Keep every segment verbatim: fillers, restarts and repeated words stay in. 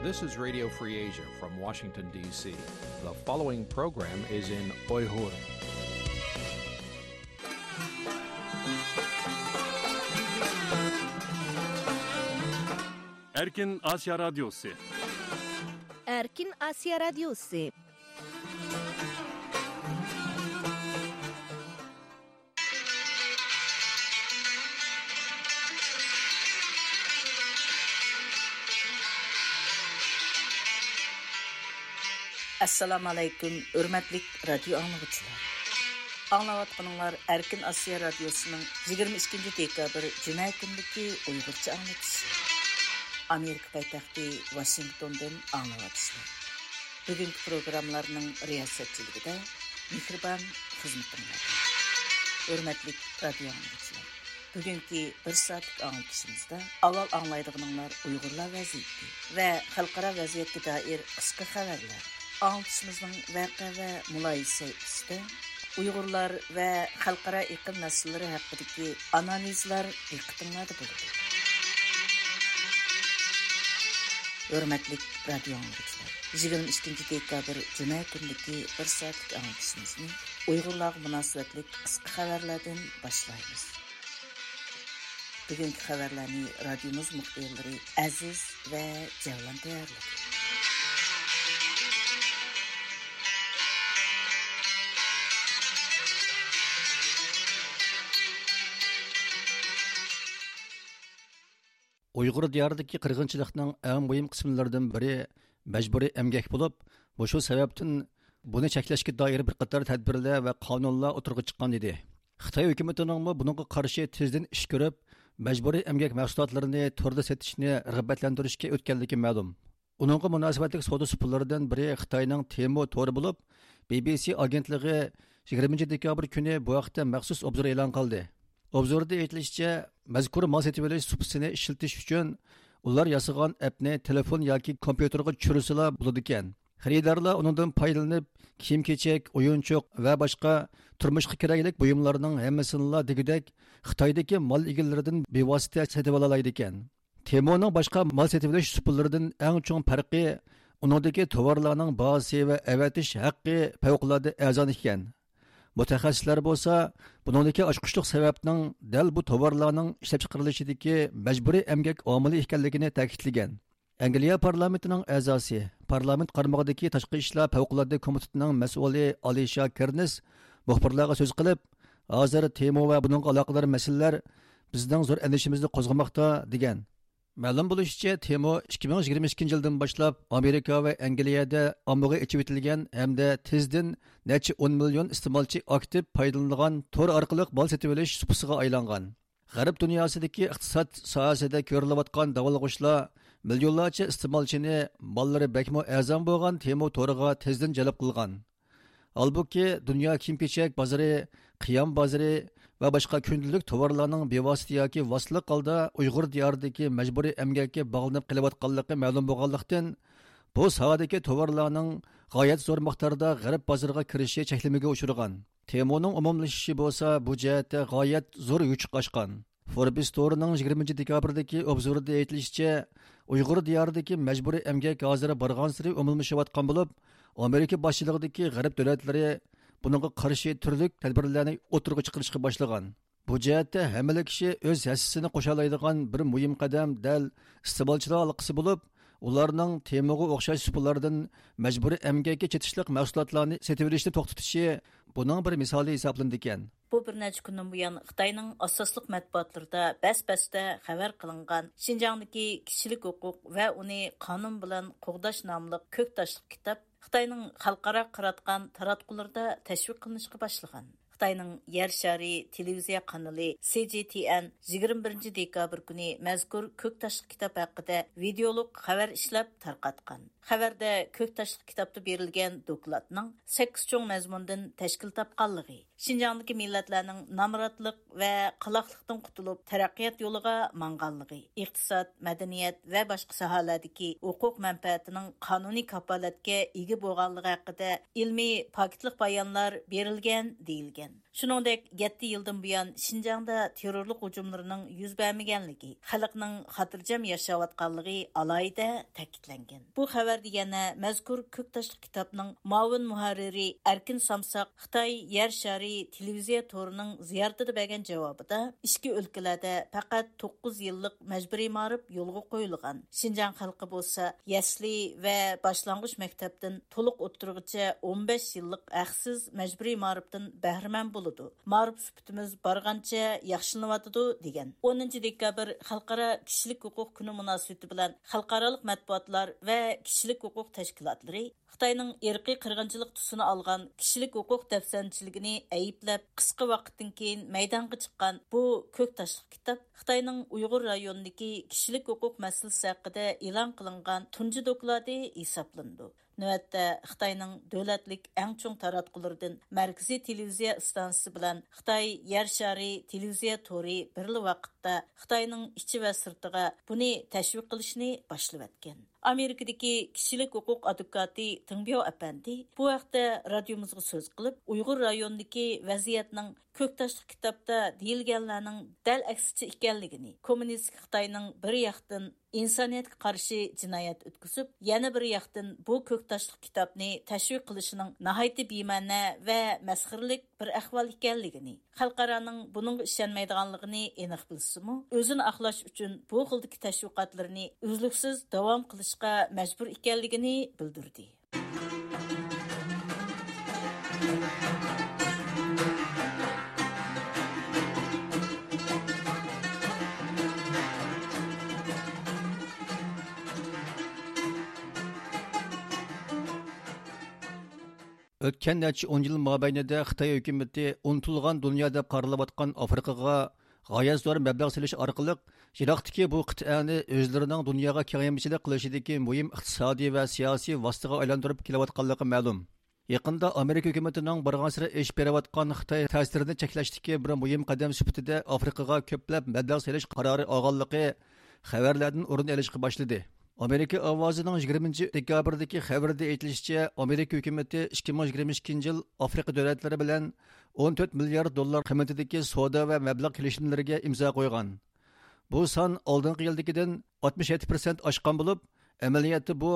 This is Radio Free Asia from Washington, D C. The following program is in Uyghur. Erkin Asya Radyosu. Erkin Asya Radyosu. ئەسسالامۇ ئەلەيكۇم، ھۆرمەتلىك رادىيو ئاڭلىغۇچىلار. ئاڭلاۋاتقىنىڭلار ئەركىن ئاسىيا رادىيوسىنىڭ يىگىرمە ئىككىنچى دېكابىر جۈمە كۈنىدىكى ئۇيغۇرچە ئاڭلىتىشى. ئامېرىكا پايتەختى ۋاشىنگتوندىن ئاڭلاۋاتىسىلەر. بۈگۈنكى پروگراممىلارنىڭ رىياسەتچىلىكىدە مېھرىبان خىزمىتىڭلاردا. ھۆرمەتلىك رادىيو ئاڭلىغۇچىلار، بۈگۈنكى بىر سائەتلىك ئاڭلىتىشىمىزدا ئاۋۋال ئاڭلايدىغىنىڭلار ئۇيغۇرلار ۋەزىيىتى ۋە خەلقئارا ۋەزىيەتكە دائىر قىسقا خەۋەرلەر. ئاڭلىتىشىمىزنىڭ ۋەقە ۋە مۇلاھىزە سەھىپىسىدە ئۇيغۇرلار ۋە خەلقئارا ئېقىم مەسىلىلىرى ھەققىدىكى ئانالىزلار دىققىتىڭلاردا بولىدۇ. ھۆرمەتلىك رادىيو ئاڭلىغۇچىلار، يىگىرمە ئىككىنچى دېكابىر جۈمە كۈنىدىكى بىر سائەتلىك ئاڭلىتىشىمىزنى ئۇيغۇرلارغا مۇناسىۋەتلىك قىسقا خەۋەرلەردىن باشلايمىز. بۈگۈنكى خەۋەرلەرنى رادىيومىز مۇخبىرلىرى ئەزىز ۋە جەۋلان تەييارلىدى. ئۇيغۇر دىيارىدىكى قىرغىنچىلىقنىڭ ئەڭ مۇھىم قىسىملىرىدىن بىرى مەجبۇرىي ئەمگەك بولۇپ، مۇشۇ سەۋەبتىن بۇنى چەكلەشكە دائىر بىر قاتار تەدبىرلەر ۋە قانۇنلار ئوتتۇرىغا چىققان ئىدى. خىتاي ھۆكۈمىتىنىڭمۇ بۇنىڭغا قارشى تېزدىن ئىش كۆرۈپ، مەجبۇرىي ئەمگەك مەھسۇلاتلىرىنى توردا سېتىشنى رىغبەتلەندۈرۈشكە ئۆتكەنلىكى مەلۇم. ئۇنىڭغا مۇناسىۋەتلىك سودا سۇپىلىرىدىن بىرى خىتاينىڭ تېمو تورى بولۇپ، بى بى سى ئاگېنتلىقى يىگىرمىنچى دېكابىر كۈنى بۇ ھەقتە مەخسۇس ئوبزور ئېلان قىلدى. ئوبزوردا ئېيتىلىشىچە، مەزكۇر مال سېتىۋېلىش سۇپىسىنى ئىشلىتىش ئۈچۈن ئۇلار ياسىغان ئەپنى تېلېفون ياكى كومپيۇتېرغا چۈشۈرسىلا بولىدىكەن. خېرىدارلار ئۇنىڭدىن پايدىلىنىپ، كىيىم-كېچەك، ئويۇنچۇق ۋە باشقا تۇرمۇشقا كېرەكلىك بۇيۇملارنىڭ ھەممىسىنىلا دېگۈدەك خىتايدىكى مال ئىگىلىرىدىن بىۋاسىتە سېتىۋالالايدىكەن. تېمونىڭ باشقا مال سېتىۋېلىش سۇپىلىرىدىن ئەڭ چوڭ پەرقى ئۇنىڭدىكى تاۋارلارنىڭ باھاسى ۋە ئەۋەتىش ھەققى پەۋقۇلئاددە ئەرزان ئىكەن. مۇتەخەسسىسلەر بولسا بۇنىڭدىكى ئاچقۇچلۇق سەۋەبنىڭ دەل بۇ تاۋارلارنىڭ ئىشلەپچىقىرىلىشىدىكى مەجبۇرىي ئەمگەك ئامىلى ئىكەنلىكىنى تەكىتلىگەن. ئەنگلىيە پارلامېنتىنىڭ ئەزاسى، پارلامېنت قارمىقىدىكى تاشقى ئىشلار پەۋقۇلئاددە كومىتېتىنىڭ مەسئۇلى ئالىشا كېرنس مۇخبىرلارغا سۆز قىلىپ، ھازىر تېمو ۋە بۇنىڭغا ئالاقىدار مەسىلىلەر بىزنىڭ زور ئەندىشىمىزنى قوزغىماقتا، دېگەن. مەلۇم بولۇشىچە، تېمو ئىككى مىڭ يىگىرمە ئىككىنچى يىلدىن باشلاپ ئامېرىكا ۋە ئەنگلىيەدە ئاممىغا ئېچىۋېتىلگەن ھەمدە تېزدىن نەچچە ئون مىليون ئىستېمالچى ئاكتىپ پايدىلىنىدىغان تور ئارقىلىق مال سېتىۋېلىش سۇپىسىغا ئايلانغان. غەرب دۇنياسىدىكى ئىقتىساد ساھەسىدە كۆرۈلۈۋاتقان داۋالغۇشلار مىليونلارچە ئىستېمالچىنى ماللىرى بەكمۇ ئەرزان بولغان تېمو تورىغا تېزدىن جەلپ قىلغان. ھالبۇكى، دۇنيا كىيىم-كېچەك بازىرى، قىيام بازىرى ۋە باشقا كۈندىلىك تاۋارلارنىڭ بىۋاسىتە ياكى ۋاسىتىلىك ھالدا ئۇيغۇر دىيارىدىكى مەجبۇرىي ئەمگەككە باغلىنىپ قېلىۋاتقانلىقى مەلۇم بولغانلىقتىن، بۇ ساھەدىكى تاۋارلارنىڭ غايەت زور مىقداردا غەرب بازىرىغا كىرىشى چەكلىمىگە ئۇچرىغان. تېمونىڭ ئومۇملىشىشى بولسا بۇ جەھەتتە غايەت زور يوچۇق ئاچقان. فوربس تورىنىڭ يىگىرمىنچى دېكابىردىكى ئوبزورىدا ئېيتىلىشىچە، ئۇيغۇر دىيارىدىكى مەجبۇرىي ئەمگەك ھازىر بارغانسېرى ئومۇملىشىۋاتقان بولۇپ، ئامېرىكا باشچىلىقىدىكى غەرب دۆلەتلىرى بۇنىڭغا قارشى تۈرلۈك تەدبىرلەرنى ئوتتۇرىغا چىقىرىشقا باشلىغان. بۇ جەھەتتە ھەممىلا كىشى ئۆز ھەسسىسىنى قوشالايدىغان بىر مۇھىم قەدەم دەل ئىستېمالچىلار ھالقىسى بولۇپ، ئۇلارنىڭ تېموغا ئوخشاش سۇپىلاردىن مەجبۇرىي ئەمگەككە چېتىشلىق مەھسۇلاتلارنى سېتىۋېلىشنى توختىتىشى بۇنىڭ بىر مىسالى ھېسابلىنىدىكەن. بۇ بىر نەچچە كۈندىن بۇيان خىتاينىڭ ئاساسلىق مەتبۇئاتلىرىدا بەس-بەستە خەۋەر قىلىنغان شىنجاڭدىكى كىشىلىك ھوقۇق ۋە ئۇنى قانۇن بىلەن قوغداش ناملىق كۆك تاشلىق كىتاب خىتاينىڭ خەلقئارا قاراتقان تاراتقۇلىرىدا تەشۋىق قىلىنىشقا باشلىغان. خىتاينىڭ يەر شارى تېلېۋىزىيە قانىلى سى جى تي ئېن يىگىرمە بىرىنچى دېكابىر كۈنى مەزكۇر كۆك تاشلىق كىتاب ھەققىدە ۋىدېئولۇق خەۋەر ئىشلەپ تارقاتقان. خەۋەردە كۆك تاشلىق كىتابتا بېرىلگەن دوكلاتنىڭ سەككىز چوڭ مەزمۇندىن تەشكىل تاپقانلىقى، شىنجاڭدىكى مىللەتلەرنىڭ نامراتلىق ۋە قالاقلىقتىن قۇتۇلۇپ، تەرەققىيات يولىغا ماڭغانلىقى، ئىقتىساد، مەدەنىيەت ۋە باشقا ساھەلەردىكى ھوقۇق مەنپەئەتىنىڭ قانۇنىي كاپالەتكە ئىگە بولغانلىقى ھەققىدە ئىلمىي پاكىتلىق بايانلار بېرىلگەن دېيىلگەن. شۇنىڭدەك، يەتتە يىلدىن بۇيان شىنجاڭدا تېررورلۇق ھۇجۇملىرىنىڭ يۈز بەرمىگەنلىكى، خەلقنىڭ خاتىرجەم ياشاۋاتقانلىقى ئالاھىدە تەكىتلەنگەن. بۇ خەۋەردە يەنە مەزكۇر كۆك تاشلىق كىتابنىڭ مۇئاۋىن مۇھەررىرى ئەركىن سامساق خىتاي يەر شارى تېلېۋىزىيە تورىنىڭ زىيارىتىدە بەرگەن جاۋابىدا، ئىچكى ئۆلكىلەردە پەقەت توققۇز يىللىق مەجبۇرىي مائارىپ يولغا قويۇلغان، شىنجاڭ خەلقى بولسا يەسلى ۋە باشلانغۇچ مەكتەپتىن تولۇق ئوتتۇرىغىچە ئون بەش يىللىق ھەقسىز مەجبۇرىي مائارىپتىن بەھرىمەن بولىدۇ. مائارىپ سۈپىتىمىز بارغانچە ياخشىلىنىۋاتىدۇ، دېگەن. ئونىنچى دېكابىر خەلقئارا كىشىلىك ھوقۇق كۈنى مۇناسىۋىتى بىلەن خەلقئارالىق مەتبۇئاتلار ۋە كىشىلىك ھوقۇق تەشكىلاتلىرى خىتاينىڭ ئىرقىي قىرغىنچىلىق تۈسىنى ئالغان كىشىلىك ھوقۇق دەپسەندىچىلىكىنى ئەيىبلەپ، قىسقا ۋاقىتتىن كېيىن مەيدانغا چىققان بۇ كۆك تاشلىق كىتاب خىتاينىڭ ئۇيغۇر رايونىدىكى كىشىلىك ھوقۇق مەسىلىسى ھەققىدە ئېلان قىلىنغان تۇنجى دوكلاتى ھېسابلىنىدۇ. نۆۋەتتە خىتاينىڭ دۆلەتلىك ئەڭ چوڭ تاراتقۇلىرىدىن مەركىزىي تېلېۋىزىيە ئىستانسىسى بىلەن خىتاي يەر شارى تېلېۋىزىيە تورى بىرلا ۋاقىتتا خىتاينىڭ ئىچى ۋە سىرتىغا بۇنى تەشۋىق قىلىشنى باشلىۋەتكەن. ئامېرىكىدىكى كىشىلىك ھوقۇق ئادۋوكاتى تېڭ بياۋ ئەپەندى بۇ ھەقتە رادىيومىزغا سۆز قىلىپ، ئۇيغۇر رايونىدىكى ۋەزىيەتنىڭ كۆك تاشلىق كىتابتا دېيىلگەنلەرنىڭ دەل ئەكسىچە ئىكەنلىكىنى، كوممۇنىستىك خىتاينىڭ بىر ياقتىن ئىنسانىيەتكە قارشى جىنايەت ئۆتكۈزۈپ، يەنە بىر ياقتىن بۇ كۆك تاشلىق كىتابنى تەشۋىق قىلىشىنىڭ ناھايىتى بىمەنە ۋە مەسخىرىلىك بىر ئەھۋال ئىكەنلىكىنى، خەلقئارانىڭ بۇنىڭغا ئىشەنمەيدىغانلىقىنى ئېنىق بىلسىمۇ، ئۆزىنى ئاقلاش ئۈچۈن بۇ خىلدىكى تەشۋىقاتلىرىنى ئۈزلۈكسىز داۋام قىلىشقا مەجبۇر ئىكەنلىكىنى بىلدۈردى. ئۆتكەن نەچچە ئون يىل مابەينىدە خىتاي ھۆكۈمىتى ئۇنتۇلغان دۇنيا دەپ قارىلىۋاتقان ئافرىقىغا غايەت زور مەبلەغ سېلىش ئارقىلىق، يىراقتىكى بۇ قىتئەنى ئۆزلىرىنىڭ دۇنياغا كېڭەيمىچىلىك قىلىشىدىكى مۇھىم ئىقتىسادىي ۋە سىياسىي ۋاسىتىگە ئايلاندۇرۇپ كېلىۋاتقانلىقى مەلۇم. يېقىندا ئامېرىكا ھۆكۈمىتىنىڭ بارغانسېرى ئېشىپ بېرىۋاتقان خىتاي تەسىرىنى چەكلەشتىكى بىر مۇھىم قەدەم سۈپىتىدە ئافرىقىغا كۆپلەپ مەبلەغ سېلىش قارارى ئالغانلىقى خەۋەرلەردىن ئورۇن ئېلىشقا باشلىدى. ئامېرىكا ئاۋازىنىڭ يىگىرمىنچى دېكابىردىكى خەۋىرىدە ئېيتىلىشىچە، ئامېرىكا ھۆكۈمىتى ئىككى مىڭ يىگىرمە ئىككىنچى يىل ئافرىقا دۆلەتلىرى بىلەن ئون تۆت مىليارد دوللار قىممىتىدىكى سودا ۋە مەبلەغ كېلىشىملىرىگە ئىمزا قويغان. بۇ سان ئالدىنقى يىلدىكىدىن ئاتمىش يەتتە پىرسەنت ئاشقان بولۇپ، ئەمەلىيەتتە بۇ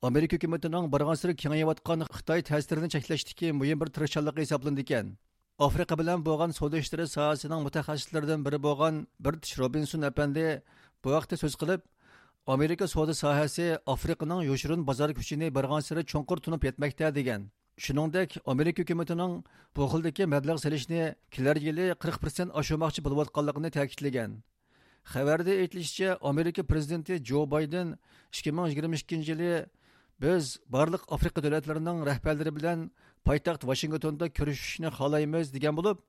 ئامېرىكا ھۆكۈمىتىنىڭ بارغانسېرى كېڭىيىۋاتقان خىتاي تەسىرىنى چەكلەشتىكى مۇھىم بىر تىرىشچانلىقى ھېسابلىنىدىكەن. ئافرىقا بىلەن بولغان سودا ئىشلىرى ساھەسىنىڭ مۇتەخەسسىسلىرىدىن بىرى بولغان بىرتىش روبىنسون ئەپەندى بۇ ھەقتە سۆز قىلىپ، ئامېرىكا سودا ساھەسى ئافرىقىنىڭ يوشۇرۇن بازار كۈچىنى بارغانسېرى چوڭقۇر تونۇپ يەتمەكتە، دېگەن. شۇنىڭدەك، ئامېرىكا ھۆكۈمىتىنىڭ بۇ خىلدىكى مەبلەغ سېلىشنى كېلەر يىلى قىرىق پىرسەنت ئاشۇرماقچى بولۇۋاتقانلىقىنى تەكىتلىگەن. خەۋەردە ئېيتىلىشىچە، ئامېرىكا پىرېزىدېنتى جو بايدېن ئىككى مىڭ يىگىرمە ئىككىنچى يىلى، بىز بارلىق ئافرىقا دۆلەتلىرىنىڭ رەھبەرلىرى بىلەن پايتەخت ۋاشىنگتوندا كۆرۈشۈشنى خالايمىز، دېگەن بولۇپ،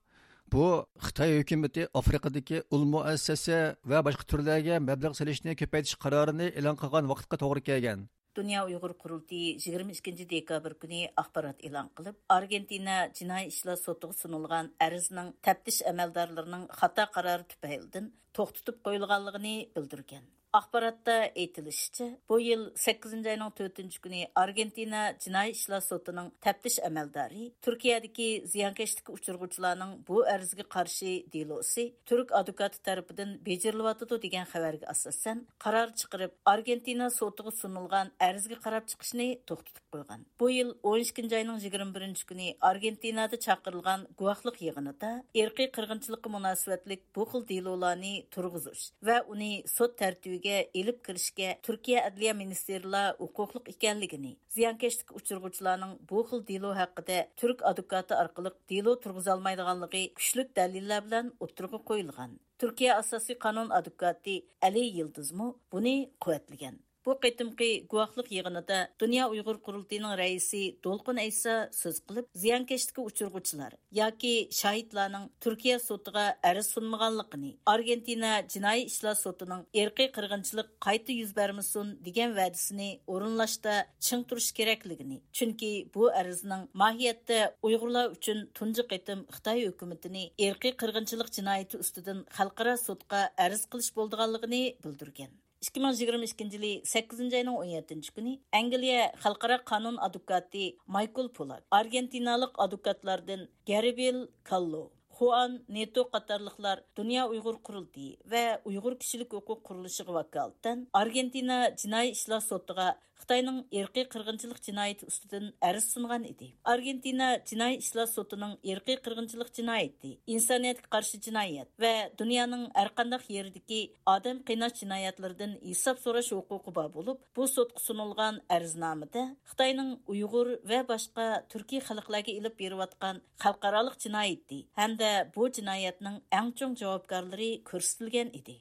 بۇ خىتاي ھۆكۈمىتى ئافرىقىدىكى ئۇل مۇئەسسەسە ۋە باشقا تۈرلەرگە مەبلەغ سېلىشنى كۆپەيتىش قارارىنى ئېلان قىلغان ۋاقىتقا توغرا كەلگەن. دۇنيا ئۇيغۇر قۇرۇلتىيى يىگىرمە ئىككىنچى دېكابىر كۈنى ئاخبارات ئېلان قىلىپ، ئارگېنتىنا جىنايى ئىشلار سوتىغا سۇنۇلغان ئەرزنىڭ تەپتىش ئەمەلدارلىرىنىڭ خاتا قارارى تۈپەيلىدىن توختىتىپ قويۇلغانلىقىنى بىلدۈرگەن. ئاخباراتتا ئېيتىلىشىچە، بۇ يىل سەككىزىنچى ئاينىڭ تۆتىنچى كۈنى ئارگېنتىنا جىنايى ئىشلار سوتىنىڭ تەپتىش ئەمەلدارى تۈركىيەدىكى زىيانكەشلىككە ئۇچرىغۇچىلارنىڭ بۇ ئەرزىگە قارشى دېلوسى تۈرك ئادۋوكاتى تەرىپىدىن بېجىرىلىۋاتىدۇ، دېگەن خەۋەرگە ئاساسەن، قارار چىقىرىپ، ئارگېنتىنا سوتىغا سۇنۇلغان ئەرزگە قاراپ چىقىشنى توختىتىپ قويغان. بۇ يىل ئون ئىككىنچى ئاينىڭ يىگىرمە بىرىنچى كۈنى ئارگېنتىنادا چاقىرىلغان گۇۋاھلىق يىغىنىدا ئىرقىي قىرغىنچىلىققا مۇناسىۋەتلىك بۇ خىل دېلولارنى تۇرغۇزۇش ۋە ئۇنى سوت تەرتىپىگە ئېلىپ كىرىشكە تۈركىيە ئەدلىيە مىنىستىرلار ھوقۇقلۇق ئىكەنلىكىنى، زىيانكەشلىككە ئۇچرىغۇچىلارنىڭ بۇ خىل دېلو ھەققىدە تۈرك ئادۋوكاتى ئارقىلىق دېلو تۇرغۇزالمايدىغانلىقى كۈچلۈك دەلىللەر بىلەن ئوتتۇرىغا قويۇلغان. تۈركىيە ئاساسىي قانۇن ئادۋوكاتى ئەلى يىلدىزمۇ بۇنى قۇۋۋەتلىگەن. بۇ قېتىمقى گۇۋاھلىق يىغىنىدا دۇنيا ئۇيغۇر قۇرۇلتىيىنىڭ رەئىسى دولقۇن ئەيسا سۆز قىلىپ، زىيانكەشلىككە ئۇچرىغۇچىلار ياكى شاھىتلارنىڭ تۈركىيە سوتىغا ئەرز سۇنمىغانلىقىنى، ئارگېنتىنا جىنايى ئىشلار سوتىنىڭ ئىرقىي قىرغىنچىلىق قايتا يۈز بەرمىسۇن دېگەن ۋەدىسىنى ئورۇنلاشتا چىڭ تۇرۇش كېرەكلىكىنى، چۈنكى بۇ ئەرزنىڭ ماھىيەتتە ئۇيغۇرلار ئۈچۈن تۇنجى قېتىم خىتاي ھۆكۈمىتىنى ئىرقىي قىرغىنچىلىق جىنايىتى ئۈستىدىن خەلقئارا سوتقا ئەرز قىلىش بولىدىغانلىقىنى بىلدۈرگەن. ئىككى مىڭ يىگىرمە ئىككىنچى يىلى سەككىزىنچى ئاينىڭ ئون يەتتىنچى كۈنى ئەنگلىيە خەلقئارا قانۇن ئادۋوكاتى مايكل پولاك ئارگېنتىنالىق ئادۋوكاتلاردىن گەربىل كاللو، خۇئان نېتو قاتارلىقلار دۇنيا ئۇيغۇر قۇرۇلتىيى ۋە ئۇيغۇر كىشىلىك ھوقۇق قۇرۇلۇشىغا ۋاكالىتەن ئارگېنتىنا جىنايى ئىشلار سوتىغا خىتاينىڭ ئىرقىي قىرغىنچىلىق جىنايىتى ئۈستىدىن ئەرز سۇنغان ئىدى. ئارگېنتىنا جىنايى ئىشلار سوتىنىڭ ئىرقىي قىرغىنچىلىق جىنايىتى، ئىنسانىيەتكە قارشى جىنايەت ۋە دۇنيانىڭ ھەرقانداق يېرىدىكى ئادەم قىيناش جىنايەتلىرىدىن ھېساب سوراش ھوقۇقى بار بولۇپ، بۇ سوتقا سۇنۇلغان ئەرزنامىدە خىتاينىڭ ئۇيغۇر ۋە باشقا تۈركىي خەلقلەرگە ئېلىپ بېرىۋاتقان خەلقئارالىق جىنايىتى ھەمدە بۇ جىنايەتنىڭ ئەڭ چوڭ جاۋابكارلىرى كۆرسىتىلگەن ئىدى.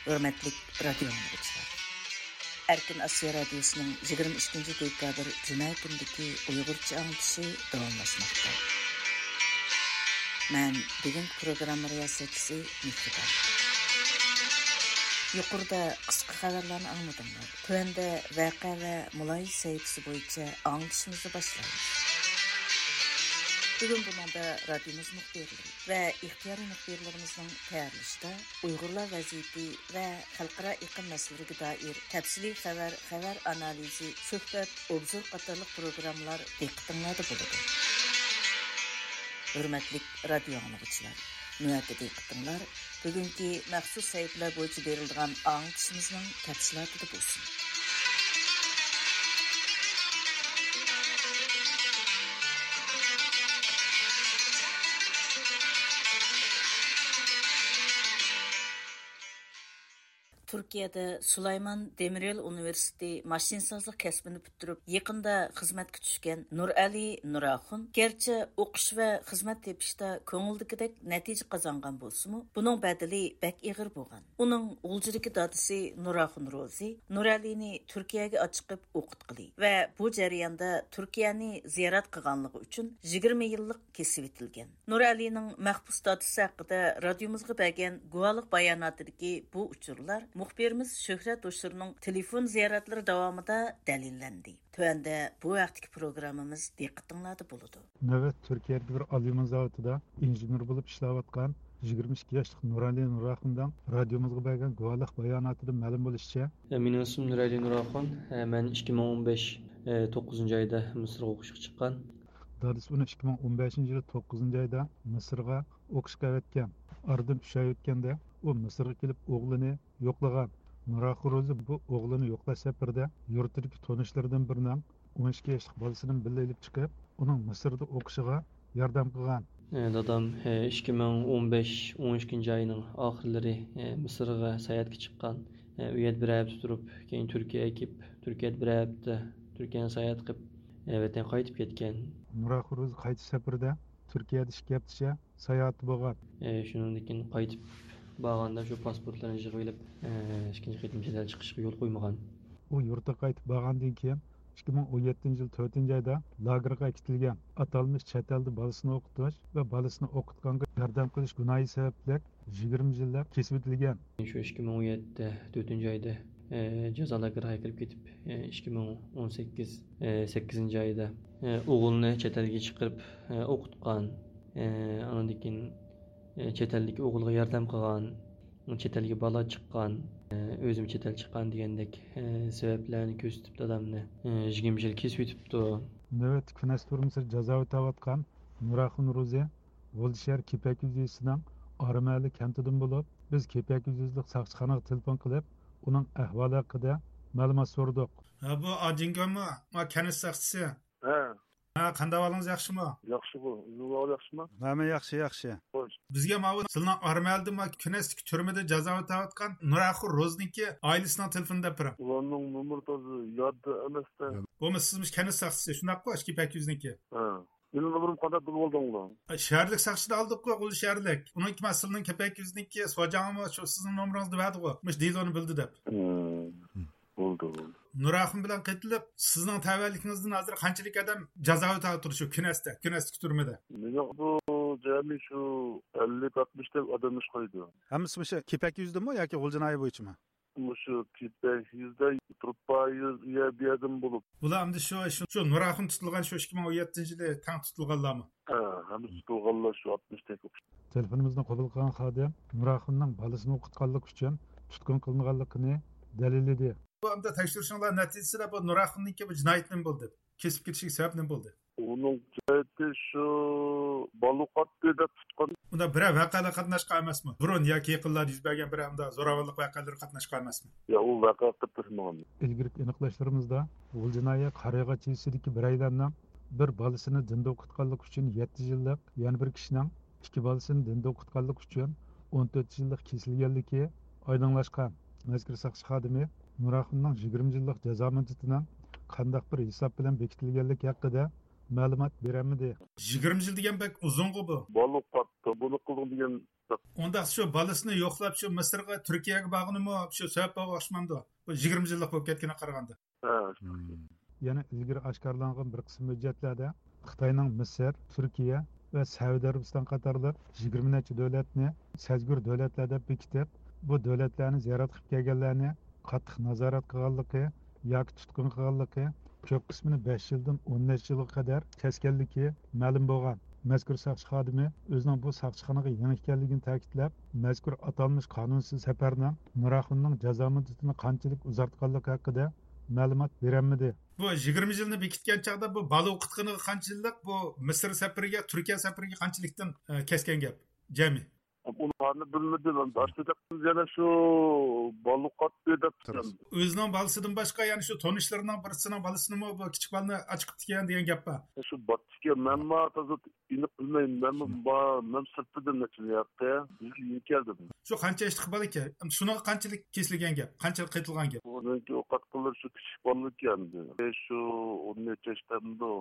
ھۆرمەتلىك رادىيو ئاڭلىغۇچىلار! ئەركىن ئاسىيا رادىيوسىنىڭ يىگىرمە ئىككىنچى دېكابىر جۈمە كۈنىدىكى ئۇيغۇرچە ئاڭلىتىشى داۋاملاشماقتا. مەن بۈگۈنكى پروگرامما رىياسەتچىسى مېھرىبان. يۇقىرىدا قىسقا خەۋەرلەرنى ئاڭلىدىڭلار. تۆۋەندە ۋەقە ۋە مۇلاھىزە سەھىپىسى بويىچە ئاڭلىتىشىمىزنى باشلايمىز. بۈگۈن بۇنىڭدا رادىيومىز مۇخبىرلىرى ۋە ئىختىيارىي مۇخبىرلىرىمىزنىڭ تەييارلىشىدا ئۇيغۇرلار ۋەزىيىتى ۋە خەلقئارا ئېقىم مەسىلىلىرىگە دائىر تەپسىلىي خەۋەر، خەۋەر ئانالىزى، سۆھبەت، ئوبزور قاتارلىق پروگراممىلار دىققىتىڭلاردا بولىدۇ. ھۆرمەتلىك رادىيو ئاڭلىغۇچىلار، نۆۋەتتە دىققىتىڭلار بۈگۈنكى مەخسۇس سەھىپىلەر بويىچە بېرىلىدىغان ئاڭلىتىشىمىزنىڭ تەپسىلاتىدا بولسۇن. تۈركىيەدە سۇلايمان دېمىريول ئۇنىۋېرسىتېتى ماشىنىسازلىق كەسپىنى پۈتتۈرۈپ، يېقىندا خىزمەتكە چۈشكەن نۇرئەلى نۇراخۇن، گەرچە ئوقۇش ۋە خىزمەت تېپىشتا كۆڭۈلدىكىدەك نەتىجە قازانغان بولسىمۇ، بۇنىڭ بەدىلى بەك ئېغىر بولغان. ئۇنىڭ غۇلجىدىكى دادىسى نۇراخۇن روزى نۇرئەلىنى تۈركىيەگە ئاچىقىپ ئوقۇتقىلى ۋە بۇ جەرياندا تۈركىيەنى زىيارەت قىلغانلىقى ئۈچۈن يىگىرمە يىللىق كېسىۋېتىلگەن. نۇرئەلىنىڭ مەھبۇس دادىسى ھەققىدە رادىيومىزغا بەرگەن گۇۋاھلىق باياناتىدىكى بۇ ئۇچۇرلار مۇخبىرىمىز شۆھرەت ھوشۇرنىڭ تېلېفون زىيارەتلىرى داۋامىدا دەلىللەندى. تۆۋەندە بۇ ھەقتىكى پروگراممىمىز دىققىتىڭلاردا بولىدۇ. نۆۋەت تۈركىيەدىكى بىر ئاليۇمىن زاۋۇتىدا ئىنژېنېر بولۇپ ئىشلەۋاتقان يىگىرمە ئىككى ياشلىق نۇرئەلى نۇراخۇننىڭ رادىيومىزغا بەرگەن گۇۋاھلىق باياناتىدىن مەلۇم بولۇشىچە، مېنىڭ ئىسمىم نۇرئەلى نۇراخۇن. مەن ئىككى مىڭ ئون بەش، توققۇزىنچى ئايدا مىسىرغا ئوقۇشقا چىققان. دادىسى ئۇنى ئىككى مىڭ ئون بەشىنچى يىلى توققۇزىنچى ئايدا مىسىرغا ئوقۇشقا ئەۋەتكەن. ئارىدىن ئۈچ ئاي ئۆتكەندە، ئۇ مىسىرغا كېلىپ ئوغلىنى يوقلىغان. نۇراخۇن روزى بۇ ئوغلىنى يوقلاش سەپىرىدە يۇرتىدىكى تونۇشلىرىدىن بىرىنىڭ ئون ئىككى ياشلىق بالىسىنى بىللە ئېلىپ چىقىپ، ئۇنىڭ مىسىردا ئوقۇشىغا ياردەم قىلغان. ئە، دادام، ئە، ئىككى مىڭ ئون بەش، ئون ئىككىنچى ئاينىڭ ئاخىرلىرى، ئە، مىسىرغا ساياھەتكە چىققان. ئە، ئۇ يەردە بىر ھەپتە تۇرۇپ، كېيىن تۈركىيەگە كېلىپ، تۈركىيەدە بىر ھەپتە، تۈركىيەنى ساياھەت قىلىپ، ئە، ۋەتەنگە قايتىپ كەتكەن. نۇراخۇن روزى قايتىش سەپىرىدە تۈركىيەدە ئىككى ھەپتىچە ساياھەتتە بولغان. ئە، شۇنىڭدىن كېيىن قايتىپ بارغاندا شۇ پاسپورتلارنى يىغىۋېلىپ، ئە، ئىككىنچى قېتىم چەت ئەلگە چىقىشقا يول قويمىغان. ئۇ يۇرتىغا قايتىپ بارغاندىن كېيىن، ئىككى مىڭ ئون يەتتىنچى يىل تۆتىنچى ئايدا لاگېرغا ئەكېتىلگەن. ئاتالمىش چەت ئەلدە بالىسىنى ئوقۇتۇش ۋە بالىسىنى ئوقۇتقانغا ياردەم قىلىش گۇناھى سەۋەبلىك يىگىرمە يىللىق كېسىۋېتىلگەن. شۇ ئىككى مىڭ ئون يەتتە تۆتىنچى ئايدا، ئە، جازا لاگېرىغا كىرىپ كېتىپ، ئە، ئىككى مىڭ ئون سەككىز، ئە، سەككىزىنچى ئايدا، ئە، ئوغلىنى چەت ئەلگە چىقىرىپ، ئە، ئوقۇتقان. ئە، ئاندىن كېيىن، ئە، چەت ئەلدىكى ئوغلىغا ياردەم قىلغان، چەت ئەلگە بالا چىققان، ئە، ئۆزۈم چەت ئەل چىققان دېگەندەك، ئە، سەۋەبلەرنى كۆرسىتىپ دادامنى، ئە، يىگىرمە يىل كېسىۋېتىپتۇ. نۆۋەتتە كۈنەس تۈرمىسىدە جازا ئۆتەۋاتقان نۇراخۇن روزى غۇلجا شەھەر كېپەك يېزىسىنىڭ ئارىمەھەللە كەنتىدىن بولۇپ، بىز كېپەك يېزىلىق ساقچىخانىغا تېلېفون قىلىپ، ئۇنىڭ ئەھۋالى ھەققىدە مەلۇمات سورىدۇق. ھە، بۇ ئاجىڭگامۇ؟ ما كەنت ساقچىسى. ھە. ھە، قانداق ئەھۋالىڭىز، ياخشىمۇ؟ ياخشى بۇ. ئىزنىڭىز ئەھۋالى ياخشىمۇ؟ ھە، مەن ياخشى، ياخشى. خوش. بىزگە ماۋۇ سىلىنىڭ ئارىمەھەللىدە ما كۈنەستىكى تۈرمىدە جازا ئۆتەۋاتقان نۇراخۇن روزىنىڭكى ئائىلىسىنىڭ تېلېفونىنى بەرىپ بېرىڭ. ئۇلارنىڭ نومۇرى تازا يادتا ئەمەستە. بولمىسا سىزمۇ كەنت ساقچىسى، شۇنداققۇ؟ ئاشۇ كېپەك يېزىنىڭكى. ھە. مېنىڭ نومۇرۇمنى قانداق بىلىۋالدىڭلار؟ شەھەرلىك ساقچىدىن ئالدۇققۇ، غۇلجا شەھەرلىك. ئۇنىڭكى مەن سىلىنىڭ كېپەك يېزىنىڭكى سوجاڭىمۇ شۇ سىزنىڭ نومۇرىڭىزنى بەردىغۇ، مۇشۇ دېلونى بىلدى دەپ. ھىم. بولدى، بولدى. نۇراخۇن بىلەن قېتىلىپ، سىزنىڭ تەۋەلىكىڭىزدىن ھازىر قانچىلىك ئادەم جازا ئۆتەۋاتىدۇ شۇ كۈنەستە، كۈنەستىكى تۈرمىدە؟ مېنىڭ بۇ جەمئىي شۇ ئەللىك ئاتمىشتەك ئادەم ئىشقايدۇ. ھەممىسى مۇشۇ كېپەك يۈزىدىمۇ ياكى غۇلجا ناھىيە بويىچىمۇ؟ مۇشۇ كېپەك يۈزىدە تۇرۇپ بار يەر، يەر بۇ يەردىمۇ بولۇپ. بۇلار ئەمدى شۇ، شۇ، شۇ نۇراخۇن تۇتۇلغان شۇ ئىككى مىڭ ئون يەتتىنچى يىلى تەڭ تۇتۇلغانلارمۇ؟ ھە، ھەممىسى تۇتۇلغانلار شۇ ئاتمىشتەك. تېلېفونىمىزنى قوبۇل قىلغان خادىم نۇراخۇننىڭ بالىسىنى ئوقۇتقانلىقى ئۈچۈن تۇتقۇن قىلىنغانلىقىنى، دەلىللىدى. بۇ ئەمدى تەكشۈرۈشۈڭلار نەتىجىسىدە بۇ نۇراخۇننىڭكى بۇ جىنايىتى نېمە بولدى؟ كېسىپ كېتىشىگە سەۋەب نېمە بولدى؟ ئۇنىڭ جىنايىتى شۇ، بالا ئوقۇتتى دەپ تۇتقان. ئۇندا بىرەر ۋەقەلەر قاتناشقان ئەمەسمۇ؟ بۇرۇن ياكى يېقىنلاردا يۈز بەرگەن بىرەر ئۇنداق زوراۋانلىق ۋەقەلىرى قاتناشقان ئەمەسمۇ؟ يا، ئۇ ۋەقە قاتناشمىغان. ئىلگىرىكى ئېنىقلاشلىرىمىزدا غۇلجا ناھىيە قارىياغاچ يېزىسىدىكى بىرەيلەننىڭ بىر بالىسىنى دىندا ئوقۇتقانلىقى ئۈچۈن يەتتە يىللىق، يەنە بىر كىشىنىڭ ئىككى بالىسىنى دىندا ئوقۇتقانلىقى ئۈچۈن ئون تۆت يىللىق كېسىلگەنلىكى ئايدىڭلاشقان. مەزكۇر ساقچى خادىمى نۇراخۇننىڭ يىگىرمە يىللىق جازا مۇددىتىنىڭ قانداق بىر ھېساب بىلەن بېكىتىلگەنلىكى ھەققىدە مەلۇمات بېرەلمىدى. يىگىرمە يىل دېگەن بەك ئۇزۇنغۇ بۇ. بالا ئوقۇتتى، بۇنى قىلدىڭ دېگەن. ئۇنداق شۇ بالىسىنى يوقلاپ، شۇ مىسىرغا، تۈركىيەگە بارغىنىمۇ شۇ سەۋەب بولغان ئوخشىمامدۇ؟ بۇ يىگىرمە يىللىق بولۇپ كەتكىنىگە قارىغاندا. ھە. يەنە ئىلگىرى ئاشكارىلانغان بىر قىسىم ھۆججەتلەردە خىتاينىڭ مىسىر، تۈركىيە ۋە سەئۇدى ئەرەبىستان قاتارلىق يىگىرمە نەچچە دۆلەتنى سەزگۈر دۆلەتلەر دەپ بېكىتىپ، بۇ دۆلەتلەرنى زىيارەت قىلىپ كەلگەنلەرنى قاتتىق نازارەت قىلغانلىقى ياكى تۇتقۇن قىلغانلىقى، كۆپ قىسمىنى بەش يىلدىن ئون نەچچە يىلغا قەدەر كەسكەنلىكى مەلۇم بولغان. مەزكۇر ساقچى خادىمى ئۆزىنىڭ بۇ ساقچىخانىغا يېڭى ئىكەنلىكىنى تەكىتلەپ، مەزكۇر ئاتالمىش قانۇنسىز سەپەرنىڭ نۇراخۇننىڭ جازا مۇددىتىنى قانچىلىك ئۇزارتقانلىقى ھەققىدە مەلۇمات بېرەلمىدى. بۇ يىگىرمە يىلنى بېكىتكەن چاغدا بۇ بالا ئوقۇتقىنىغا قانچىلىك، بۇ مىسىر سەپىرىگە، تۈركىيە سەپىرىگە قانچىلىكتىن، ئە، كەسكەن گەپ جەمئىي؟ ئۇلارنى بىلمىدىم ئەمدى. ئاشۇ يەنە شۇ بالا ئوقۇتتى دەپ. ئۆزىنىڭ بالىسىدىن باشقا يەنە شۇ تونۇشلىرىنىڭ بىرسىنىڭ بالىسىنىمۇ بۇ كىچىك بالىنى ئاچىقىپتىكەن دېگەن گەپ بار. شۇ بارتىكەن، مەنمۇ تازا ئېنىق بىلمەيمەن. مەنمۇ با-، مەن سىرتتىن نەچچە ياققا يېڭى كەلدىم. شۇ قانچە ياشلىق بالا ئىكەن؟ شۇنىڭغا قانچىلىك كېسىلگەن گەپ؟ قانچىلىك قېتىلغان گەپ؟ ئۇنىڭكى ئوقۇتقانلىرى شۇ كىچىك بالىكەن. شۇ ئون نەچچە ياشتا ئەمدى.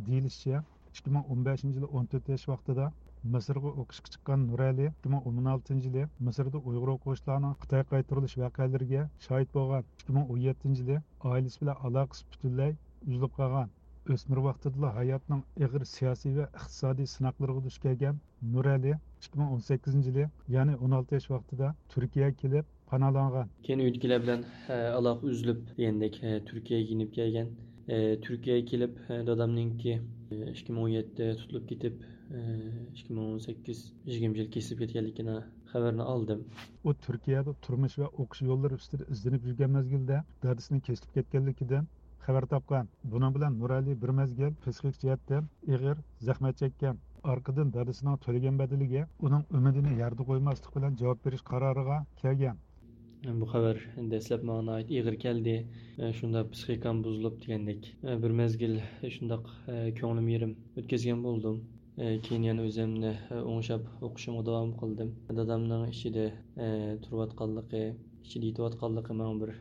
دېيىلىشىچە، ئىككى مىڭ ئون بەشىنچى يىلى ئون تۆت ياش ۋاقتىدا مىسىرغا ئوقۇشقا چىققان نۇرئەلى ئىككى مىڭ ئون ئالتىنچى يىلى مىسىردا ئۇيغۇر ئوقۇغۇچىلارنىڭ خىتايغا قايتۇرۇلۇش ۋەقەلىرىگە شاھىت بولغان. ئىككى مىڭ ئون يەتتىنچى يىلى ئائىلىسى بىلەن ئالاقىسى پۈتۈنلەي ئۈزۈلۈپ قالغان. ئۆسمۈر ۋاقتىدىلا ھاياتنىڭ ئېغىر سىياسىي ۋە ئىقتىسادىي سىناقلىرىغا دۇچ كەلگەن نۇرئەلى ئىككى مىڭ ئون سەككىزىنچى يىلى، يەنى ئون ئالتە ياش ۋاقتىدا تۈركىيەگە كېلىپ پاناھلانغان. كېيىن ئۆيدىكىلەر بىلەن، ئە، ئالاقە ئۈزۈلۈپ دېگەندەك، ئە، تۈركىيەگە يېنىپ كەلگەن. ئە، تۈركىيەگە كېلىپ، ئە، دادامنىڭكى، ئە، ئىككى مىڭ ئون يەتتە تۇتۇلۇپ كېتىپ، ئە، ئىككى مىڭ ئون سەككىز يىگىرمە يىل كېسىلىپ كەتكەنلىكىنى خەۋىرىنى ئالدىم. ئۇ تۈركىيەدە تۇرمۇش ۋە ئوقۇش يوللىرى ئۈستىدە ئىزدىنىپ يۈرگەن مەزگىلدە دادىسىنىڭ كېسىلىپ كەتكەنلىكىدىن خەۋەر تاپقان. بۇنىڭ بىلەن نۇرئەلى بىر مەزگىل پسىخىك جەھەتتىن ئېغىر زەخمەت چەككەن. ئارقىدىن دادىسىنىڭ تۆلىگەن بەدىلىگە ئۇنىڭ ئۈمىدىنى يەردە قويماسلىق بىلەن جاۋاب بېرىش قارارىغا كەلگەن. بۇ خەۋەر دەسلەپ ماڭا ناھايىتى ئېغىر كەلدى. شۇنداق پسىخىكام بۇزۇلۇپ دېگەندەك. بىر مەزگىل شۇنداق كۆڭلۈم يېرىم ئۆتكۈزگەن بولدۇم. كېيىن يەنە ئۆزۈمنى ئوڭشاپ ئوقۇشۇمغا داۋام قىلدىم. دادامنىڭ ئىچىدە تۇرۇۋاتقانلىقى، ئىچىدە يېتىۋاتقانلىقى ماڭا بىر،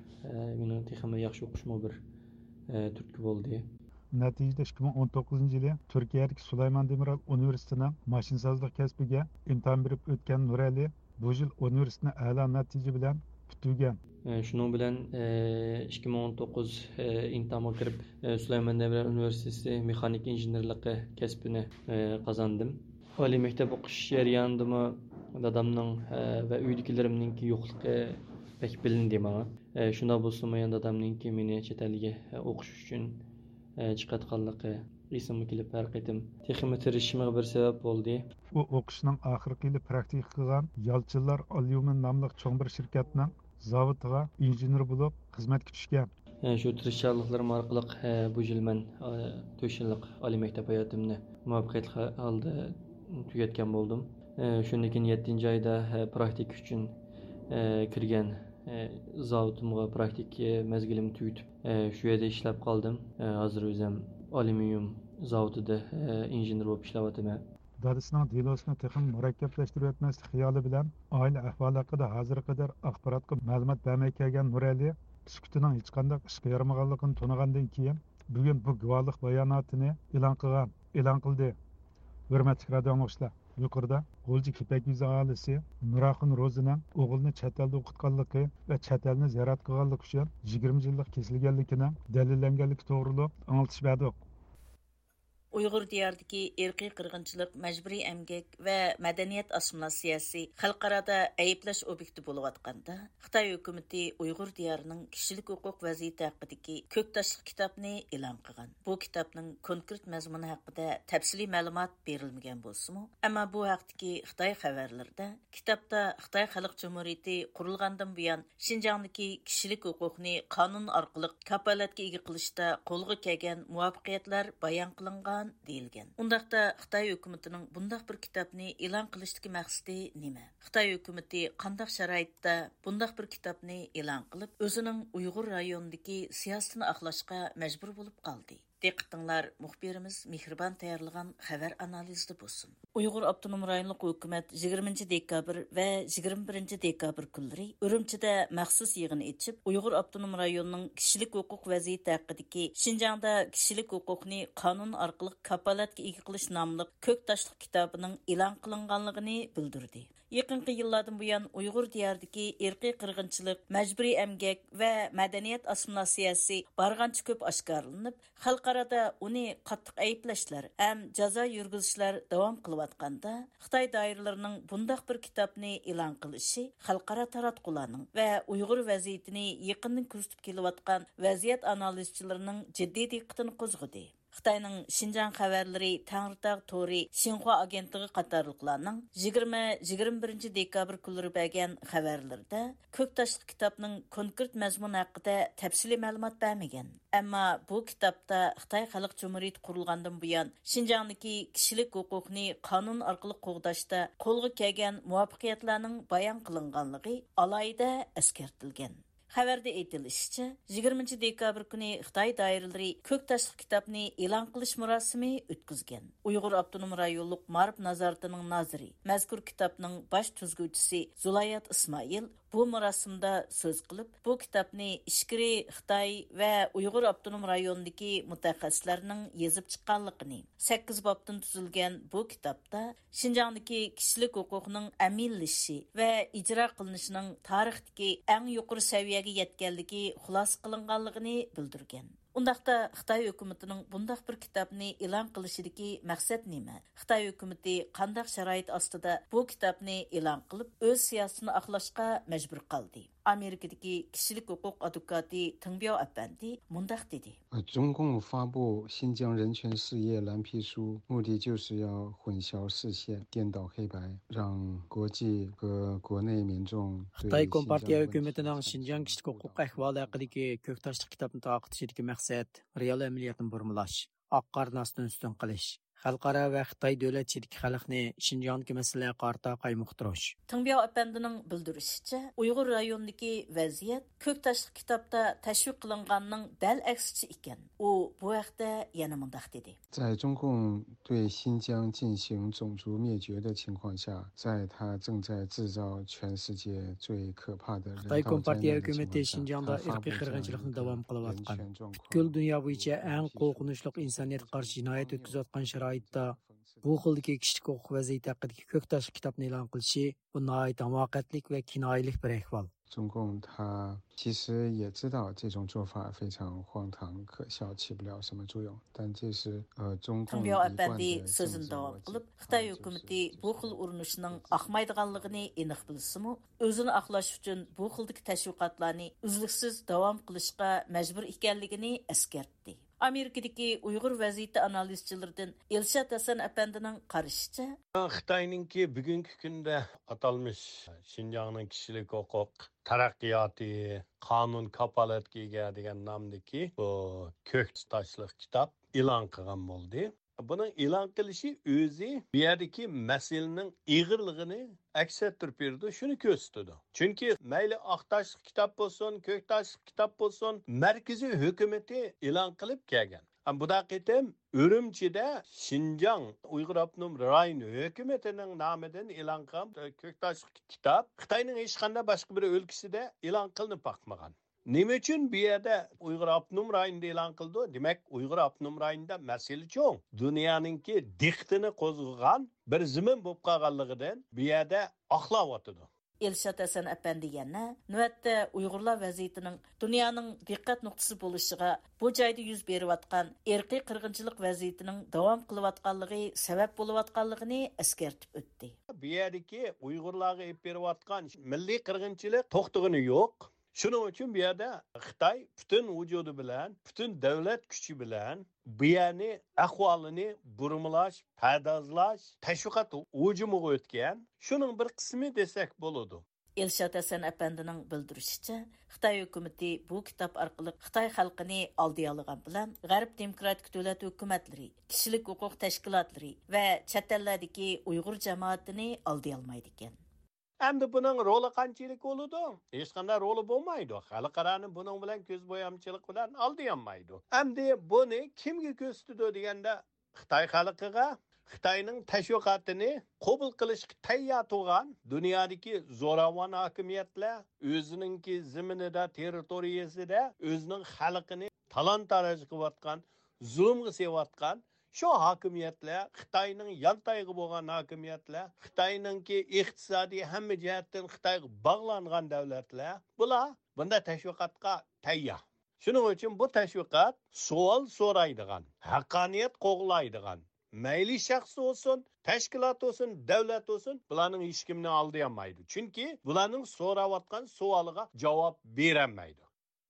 مېنىڭ تېخىمۇ ياخشى ئوقۇشۇمغا بىر تۈرتكە بولدى. نەتىجىدە ئىككى مىڭ ئون توققۇزىنچى يىلى تۈركىيەدىكى سۇلايمان دېمىرال ئۇنىۋېرسىتېتىنىڭ ماشىنىسازلىق كەسپىگە ئىمتىھان بېرىپ ئۆتكەن نۇرئەلى بۇ يىل ئۇنىۋېرسىتېتنى ئەلا نەتىجە بىلەن پۈتتۈرگەن. شۇنىڭ بىلەن، ئىككى مىڭ ئون توققۇز ئىمتىھانغا كىرىپ، سۇلايمان دېمىرال ئۇنىۋېرسىتېتى مېخانىكا ئىنژېنېرلىقى كەسپىنى قازاندىم. ئالىي مەكتەپ ئوقۇش جەريانىدىمۇ دادامنىڭ، ۋە ئۆيدىكىلىرىمنىڭكى يوقلۇقى بەك بىلىندى ماڭا. شۇنداق بولسىمۇ يەنە دادامنىڭكى مېنى چەت ئەلگە ئوقۇش ئۈچۈن چىقىۋاتقانلىقى ئېسىمگە كېلىپ، ھەر قېتىم تېخىمۇ تىرىشىشىمغا بىر سەۋەب بولدى. ئۇ ئوقۇشىنىڭ ئاخىرقى يىلى پراكتىكا قىلغان يالچىنلار ئاليۇمىن ناملىق چوڭ بىر شىركەتنىڭ زاۋۇتىغا ئىنژېنېر بولۇپ خىزمەتكە چۈشكەن. شۇ تىرىشچانلىقلىرىم ئارقىلىق، بۇ يىل مەن، تۆت يىللىق ئالىي مەكتەپ ھاياتىمنى مۇۋەپپەقىيەتلىك ھالدا تۈگەتكەن بولدۇم. شۇندىن كېيىن يەتتىنچى ئايدا، پراكتىكا ئۈچۈن، كىرگەن، زاۋۇتۇمغا پراكتىكا مەزگىلىمنى تۈگىتىپ، شۇ يەردە ئىشلەپ قالدىم. ھازىر ئۆزۈم ئاليۇمىنىيۇم زاۋۇتىدا، ئىنژېنېر بولۇپ ئىشلەۋاتىمەن. دادىسىنىڭ دېلوسىنى تېخىمۇ مۇرەككەپلەشتۈرۈۋەتمەسلىك خىيالى بىلەن، ئائىلە ئەھۋالى ھەققىدە ھازىرغا قەدەر ئاخباراتقا مەلۇمات بەرمەي كەلگەن نۇرئەلى سۈكۈتىنىڭ ھېچقانداق ئىشقا يارىمىغانلىقىنى تونۇغاندىن كېيىن، بۈگۈن بۇ گۇۋاھلىق باياناتىنى ئېلان قىلغان، ئېلان قىلدى. ھۆرمەتلىك رادىئو ئاڭلىغۇچىلار، يۇقىرىدا غۇلجا كېپەك يۈزى ئاھالىسى نۇراخۇن روزىنىڭ ئوغلىنى چەت ئەلدە ئوقۇتقانلىقى ۋە چەت ئەلنى زىيارەت قىلغانلىقى ئۈچۈن يىگىرمە يىللىق كېسىلگەنلىكىنىڭ دەلىللەنگەنلىكى توغرۇلۇق ئاڭلىتىش بەردۇق. ئۇيغۇر دىيارىدىكى ئىرقىي قىرغىنچىلىق، مەجبۇرىي ئەمگەك ۋە مەدەنىيەت ئاسسىمىلياتسىيەسى خەلقئارادا ئەيىبلەش ئوبيېكتى بولۇۋاتقاندا، خىتاي ھۆكۈمىتى ئۇيغۇر دىيارىنىڭ كىشىلىك ھوقۇق ۋەزىيىتى ھەققىدىكى كۆك تاشلىق كىتابنى ئېلان قىلغان. بۇ كىتابنىڭ كونكرېت مەزمۇنى ھەققىدە تەپسىلىي مەلۇمات بېرىلمىگەن بولسىمۇ، ئەمما بۇ ھەقتىكى خىتاي خەۋەرلىرىدە كىتابتا خىتاي خەلق جۇمھۇرىيىتى قۇرۇلغاندىن بۇيان شىنجاڭدىكى كىشىلىك ھوقۇقنى قانۇن ئارقىلىق كاپالەتكە ئىگە قىلىشتا قولغا كەلگەن مۇۋەپپەقىيەتلەر بايان قىلىنغان دېيىلگەن. ئۇنداقتا خىتاي ھۆكۈمىتىنىڭ بۇنداق بىر كىتابنى ئېلان قىلىشتىكى مەقسىتى نېمە؟ خىتاي ھۆكۈمىتى قانداق شارائىتتا بۇنداق بىر كىتابنى ئېلان قىلىپ، ئۆزىنىڭ ئۇيغۇر رايونىدىكى سىياسىتىنى ئاقلاشقا مەجبۇر بولۇپ قالدى؟ دىققىتىڭلار مۇخبىرىمىز مېھرىبان تەييارلىغان خەۋەر ئانالىزىدە بولسۇن. ئۇيغۇر ئاپتونوم رايونلۇق ھۆكۈمەت يىگىرمىنچى دېكابىر ۋە يىگىرمە بىرىنچى دېكابىر كۈنلىرى ئۈرۈمچىدە مەخسۇس يىغىن ئېچىپ، ئۇيغۇر ئاپتونوم رايونىنىڭ كىشىلىك ھوقۇق ۋەزىيىتى ھەققىدىكى شىنجاڭدا كىشىلىك ھوقۇقنى قانۇن ئارقىلىق كاپالەتكە ئىگە قىلىش ناملىق كۆك تاشلىق كىتابىنىڭ ئېلان قىلىنغانلىقىنى بىلدۈردى. يېقىنقى يىللاردىن بۇيان ئۇيغۇر دىيارىدىكى ئىرقىي قىرغىنچىلىق، مەجبۇرىي ئەمگەك ۋە مەدەنىيەت ئاسسىمىلياتسىيەسى بارغانچە كۆپ ئاشكارىلىنىپ، خەلقئارادا ئۇنى قاتتىق ئەيىبلەشلەر ھەم جازا يۈرگۈزۈشلەر داۋام قىلىۋاتقاندا، خىتاي دائىرىلىرىنىڭ بۇنداق بىر كىتابنى ئېلان قىلىشى خەلقئارا تاراتقۇلارنىڭ ۋە ئۇيغۇر ۋەزىيىتىنى يېقىندىن كۆزىتىپ كېلىۋاتقان ۋەزىيەت ئانالىزچىلىرىنىڭ جىددىي دىققىتىنى قوزغىدى. خىتاينىڭ شىنجاڭ خەۋەرلىرى تەڭرىتاغ تورى شىنخۇا ئاگېنتلىقى قاتارلىقلارنىڭ يىگىرمە، يىگىرمە بىرىنچى دېكابىر كۈنلىرى بەرگەن خەۋەرلىرىدە كۆك تاشلىق كىتابنىڭ كونكرېت مەزمۇنى ھەققىدە تەپسىلىي مەلۇمات بەرمىگەن. ئەمما بۇ كىتابتا خىتاي خەلق جۇمھۇرىيىتى قۇرۇلغاندىن بۇيان شىنجاڭدىكى كىشىلىك ھوقۇقنى قانۇن ئارقىلىق قوغداشتا قولغا كەلگەن مۇۋەپپەقىيەتلەرنىڭ بايان قىلىنغانلىقى ئالاھىدە ئەسكەرتىلگەن. خەۋەردە ئېيتىلىشىچە، يىگىرمىنچى دېكابىر كۈنى خىتاي دائىرىلىرى كۆك تاشلىق كىتابنى ئېلان قىلىش مۇراسىمى ئۆتكۈزگەن. ئۇيغۇر ئاپتونوم رايونلۇق مائارىپ نازارىتىنىڭ نازىرى، مەزكۇر كىتابنىڭ باش تۈزگۈچىسى زۇلايات ئىسمائىل بۇ مۇراسىمدا سۆز قىلىپ، بۇ كىتابنى ئىچكىرى خىتاي ۋە ئۇيغۇر ئاپتونوم رايونىدىكى مۇتەخەسسىسلەرنىڭ يېزىپ چىققانلىقىنى، سەككىز بابتىن تۈزۈلگەن بۇ كىتابتا شىنجاڭدىكى كىشىلىك ھوقۇقنىڭ ئەمەلىيلىشىشى ۋە ئىجرا قىلىنىشىنىڭ تارىختىكى ئەڭ يۇقىرى سەۋىيەگە يەتكەنلىكى خۇلاسە قىلىنغانلىقىنى بىلدۈرگەن. ئۇنداقتا خىتاي ھۆكۈمىتىنىڭ بۇنداق بىر كىتابنى ئېلان قىلىشىدىكى مەقسەت نېمە؟ خىتاي ھۆكۈمىتى قانداق شارائىت ئاستىدا بۇ كىتابنى ئېلان قىلىپ، ئۆز سىياسىتىنى ئاقلاشقا مەجبۇر قالدى؟ ئامېرىكىدىكى كىشىلىك ھوقۇق ئادۋوكاتى تېڭبياۋ ئەپەندى مۇنداق دېدى. 呃，中共发布新疆人权事业蓝皮书，目的就是要混淆视线、颠倒黑白，让国际和国内民众对 خىتاي كومپارتىيە ھۆكۈمىتىنىڭ شىنجاڭ كىشىلىك ھوقۇق ئەھۋالى ھەققىدىكى كۆك تاشلىق كىتابنى تارقىتىشىدىكى مەقسەت رېئال ئەمەلىيەتنى بۇرمىلاش، ئاق-قارىنى ئاستىن-ئۈستۈن قىلىش، خەلقئارا ۋە خىتاي دۆلەت ئىچىدىكى خەلقنى شىنجاڭدىكى مەسىلىلەرگە قارىتا قايمۇقتۇرۇش. تېڭبياۋ ئەپەندىنىڭ بىلدۈرۈشىچە، ئۇيغۇر رايونىدىكى ۋەزىيەت كۆك تاشلىق كىتابتا تەشۋىق قىلىنغاننىڭ دەل ئەكسىچە ئىكەن. ئۇ بۇ ھەقتە يەنە مۇنداق دېدى. 在中共对新疆进行种族灭绝的情况下，在他正在制造全世界最可怕的人道灾难的情况下， خىتاي كومپارتىيە ھۆكۈمىتى شىنجاڭدا ئىرقىي قىرغىنچىلىقنى داۋام قىلىۋاتقان، پۈتكۈل دۇنيا بويىچە ئەڭ قورقۇنچلۇق ئىنسانىيەتكە قارشى جىنايەت ئۆتكۈزۈۋاتقان شارائىتتا بۇ خىلدىكى كىشىلىك ھوقۇق ۋەزىيىتى ھەققىدىكى كۆك تاشلىق كىتابنى ئېلان قىلىشى، بۇ ناھايىتى ھاماقەتلىك ۋە كىنايىلىك بىر ئەھۋال. 中共他其实也知道这种做法非常荒唐可笑，起不了什么作用，但这是，呃，中共一贯的政治逻辑。 تېڭبياۋ ئەپەندى سۆزىنى داۋام قىلىپ، خىتاي ھۆكۈمىتى بۇ خىل ئۇرۇنۇشنىڭ ئاقمايدىغانلىقىنى ئېنىق بىلسىمۇ، ئۆزىنى ئاقلاش ئۈچۈن بۇ خىلدىكى تەشۋىقاتلارنى ئۈزلۈكسىز داۋام قىلىشقا مەجبۇر ئىكەنلىكىنى ئەسكەرتتى. ئامېرىكىدىكى ئۇيغۇر ۋەزىيىتى ئانالىزچىلىرىدىن ئىلشات ھەسەن ئەپەندىنىڭ قارىشىچە، خىتاينىڭكى بۈگۈنكى كۈندە ئاتالمىش شىنجاڭنىڭ كىشىلىك ھوقۇق تەرەققىياتى، قانۇن كاپالەتكە ئىگە دېگەن نامدىكى بۇ كۆك تاشلىق كىتاب ئېلان قىلغان بولدى. بۇنىڭ ئېلان قىلىشى ئۆزى بۇ يەردىكى مەسىلىنىڭ ئېغىرلىقىنى ئەكس ئەتتۈرۈپ بېرىدۇ، شۇنى كۆرسىتىدۇ. چۈنكى مەيلى ئاق تاشلىق كىتاب بولسۇن، كۆك تاشلىق كىتاب بولسۇن، مەركىزىي ھۆكۈمىتى ئېلان قىلىپ كەلگەن. ئەمما بۇ قېتىم ئۈرۈمچىدە شىنجاڭ ئۇيغۇر ئاپتونوم رايون ھۆكۈمىتىنىڭ نامىدىن ئېلان قىلغان كۆك تاشلىق كىتاب خىتاينىڭ ھېچقانداق باشقا بىر ئۆلكىسىدە ئېلان قىلىنىپ باقمىغان. نېمە ئۈچۈن بۇ يەردە ئۇيغۇر ئاپتونوم رايونىدا ئېلان قىلىدۇ؟ دېمەك، ئۇيغۇر ئاپتونوم رايونىدا مەسىلە چوڭ. دۇنيانىڭكى دىققىتىنى قوزغىغان بىر زېمىن بولۇپ قالغانلىقىدىن بۇ يەردە ئاقلاۋاتىدۇ. ئىلشات ھەسەن ئەپەندى يەنە نۆۋەتتە ئۇيغۇرلار ۋەزىيىتىنىڭ دۇنيانىڭ دىققەت نۇقتىسى بولۇشىغا، بۇ جايدا يۈز بېرىۋاتقان ئىرقىي قىرغىنچىلىق ۋەزىيىتىنىڭ داۋام قىلىۋاتقانلىقى سەۋەب بولۇۋاتقانلىقىنى ئەسكەرتىپ ئۆتتى. بۇ يەردىكى ئۇيغۇرلارغا ئېلىپ بېرىۋاتقان مىللىي قىرغىنچىلىق توختىغىنى يوق. شۇنىڭ ئۈچۈن بۇ يەردە خىتاي پۈتۈن ۋۇجۇدى بىلەن، پۈتۈن دۆلەت كۈچى بىلەن بۇ يەرنى، ئەھۋالىنى بۇرمىلاش، پەردازلاش، تەشۋىقات ھۇجۇمىغا ئۆتكەن. شۇنىڭ بىر قىسمى دېسەك بولىدۇ. ئىلشات ھەسەن ئەپەندىنىڭ بىلدۈرۈشىچە، خىتاي ھۆكۈمىتى بۇ كىتاب ئارقىلىق خىتاي خەلقىنى ئالدىيالىغان بىلەن، غەرب دېموكراتىك دۆلەت ھۆكۈمەتلىرى، كىشىلىك ھوقۇق تەشكىلاتلىرى ۋە چەت ئەللەردىكى ئۇيغۇر جامائىتىنى ئالدىيالمايدىكەن. ئەمدى بۇنىڭ رولى قانچىلىك بولىدۇ؟ ھېچقانداق رولى بولمايدۇ. خەلقئارانى بۇنىڭ بىلەن كۆز بويامچىلىق بىلەن ئالدىيالمايدۇ. ئەمدى بۇنى كىمگە كۆرسىتىدۇ دېگەندە، خىتاي خەلقىگە، خىتاينىڭ تەشۋىقاتىنى قوبۇل قىلىشقا تەييار تۇرغان دۇنيادىكى زوراۋان ھاكىمىيەتلەر، ئۆزىنىڭكى زېمىنىدا، تېررىتورىيەسىدە ئۆزىنىڭ خەلقىنى تالان-تاراج قىلىۋاتقان، زۇلۇمغا سېلىۋاتقان شۇ ھاكىمىيەتلەر، خىتاينىڭ يانتايىقى بولغان ھاكىمىيەتلەر، خىتاينىڭكى ئىقتىسادىي ھەممە جەھەتتىن خىتايغا باغلانغان دۆلەتلەر، بۇلار بۇنداق تەشۋىقاتقا تەييار. شۇنىڭ ئۈچۈن بۇ تەشۋىقات سوئال سورايدىغان، ھەققانىيەت قوغلايدىغان، مەيلى شەخس بولسۇن، تەشكىلات بولسۇن، دۆلەت بولسۇن، بۇلارنىڭ ھېچكىمنى ئالدىيالمايدۇ. چۈنكى بۇلارنىڭ سوراۋاتقان سوئالىغا جاۋاب بېرەلمەيدۇ.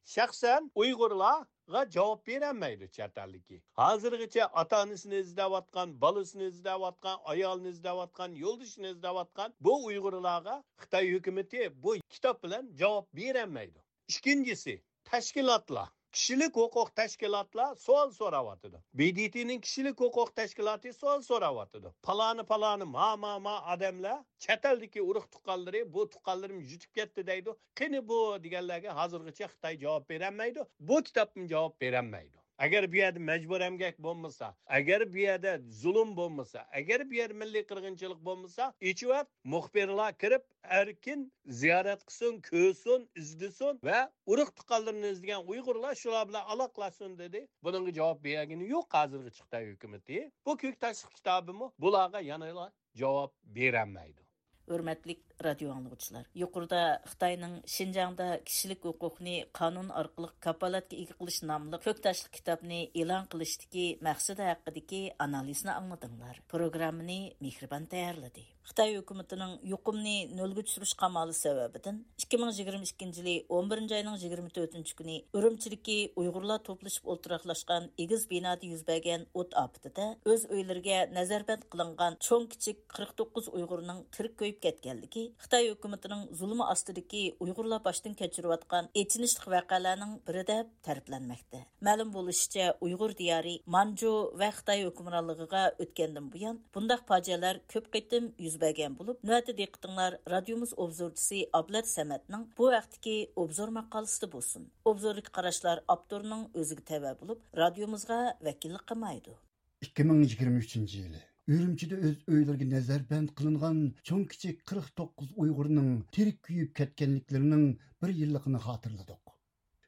شەخسەن ئۇيغۇرلارغا جاۋاب بېرەلمەيدۇ چەت ئەلدىكى. ھازىرغىچە ئاتا-ئانىسىنى ئىزدەۋاتقان، بالىسىنى ئىزدەۋاتقان، ئايالىنى ئىزدەۋاتقان، يولدىشىنى ئىزدەۋاتقان بۇ ئۇيغۇرلارغا خىتاي ھۆكۈمىتى بۇ كىتاب بىلەن جاۋاب بېرەلمەيدۇ. ئىككىنچىسى، تەشكىلاتلار، كىشىلىك ھوقۇق تەشكىلاتلار سوئال سوراۋاتىدۇ. ب د ت نىڭ كىشىلىك ھوقۇق تەشكىلاتى سوئال سوراۋاتىدۇ. پالانى، پالانى، ما، ما، ما ئادەملەر، چەت ئەلدىكى ئۇرۇق تۇغقانلىرى، بۇ تۇغقانلىرىم يۈتۈپ كەتتى دەيدۇ. قېنى بۇ دېگەنلەرگە ھازىرغىچە خىتاي جاۋاب بېرەلمەيدۇ. بۇ كىتابمۇ جاۋاب بېرەلمەيدۇ. ئەگەر بۇ يەردە مەجبۇرىي ئەمگەك بولمىسا، ئەگەر بۇ يەردە زۇلۇم بولمىسا، ئەگەر بۇ يەردە مىللىي قىرغىنچىلىق بولمىسا، ئېچىۋەت، مۇخبىرلار كىرىپ ئەركىن زىيارەت قىلسۇن، كۆرسۇن، ئىزدىسۇن ۋە ئۇرۇق تۇغقانلىرىنى ئىزدىگەن ئۇيغۇرلار شۇلار بىلەن ئالاقىلاشسۇن دېدى. بۇنىڭغا جاۋاب بەرگىنى يوق ھازىرغىچە خىتاي ھۆكۈمىتى. بۇ كۆك تاشلىق كىتابىمۇ بۇلارغا يەنىلا جاۋاب بېرەلمەيدۇ. ھۆرمەتلىك رادىيو ئاڭلىغۇچىلار، يۇقىرىدا خىتاينىڭ شىنجاڭدا كىشىلىك ھوقۇقنى قانۇن ئارقىلىق كاپالەتكە ئىگە قىلىش ناملىق كۆك تاشلىق كىتابنى ئېلان قىلىشتىكى مەقسىتى ھەققىدىكى ئانالىزنى ئاڭلىدىڭلار. پروگراممىنى مېھرىبان تەييارلىدى. خىتاي ھۆكۈمىتىنىڭ يۇقۇمنى نۆلگە چۈشۈرۈش قامالى سەۋەبىدىن، ئىككى مىڭ يىگىرمە ئىككىنچى يىلى ئون بىرىنچى ئاينىڭ يىگىرمە تۆتىنچى كۈنى ئۈرۈمچىدىكى ئۇيغۇرلار توپلىشىپ ئولتۇراقلاشقان ئېگىز بىنادا يۈز بەرگەن ئوت ئاپىتىدە ئۆز ئۆيلىرىگە نەزەربەند قىلىنغان چوڭ كىچىك قىرىق توققۇز ئۇيغۇرنىڭ تىرىك كۆيۈپ كەتكەنلىكى خىتاي ھۆكۈمىتىنىڭ زۇلۇمى ئاستىدىكى ئۇيغۇرلار باشتىن كەچۈرۈۋاتقان ئېچىنىشلىق ۋەقەلەرنىڭ بىرى دەپ تەرىپلەنمەكتە. مەلۇم بولۇشىچە، ئۇيغۇر دىيارى مانجۇ ۋە خىتاي ھۆكۈمرانلىقىغا ئۆتكەندىن بۇيان، بۇنداق پاجىئەلەر كۆپ قېتىم يۈز بەرگەن بولۇپ، نۆۋەتتە دىققىتىڭلار رادىيومىز ئوبزورچىسى ئابلەت سەمەتنىڭ بۇ ھەقتىكى ئوبزور ماقالىسىدە بولسۇن. ئوبزوردىكى قاراشلار ئاپتورنىڭ ئۆزىگە تەۋە بولۇپ، رادىيومىزغا ۋەكىللىك قىلمايدۇ. ئىككى مىڭ يىگىرمە ئۈچىنچى يىلى ئۈرۈمچىدە ئۆز ئۆيلىرىگە نەزەربەند قىلىنغان چوڭ كىچىك قىرىق توققۇز ئۇيغۇرنىڭ تىرىك كۆيۈپ كەتكەنلىكلىرىنىڭ بىر يىللىقىنى خاتىرىلىدۇق.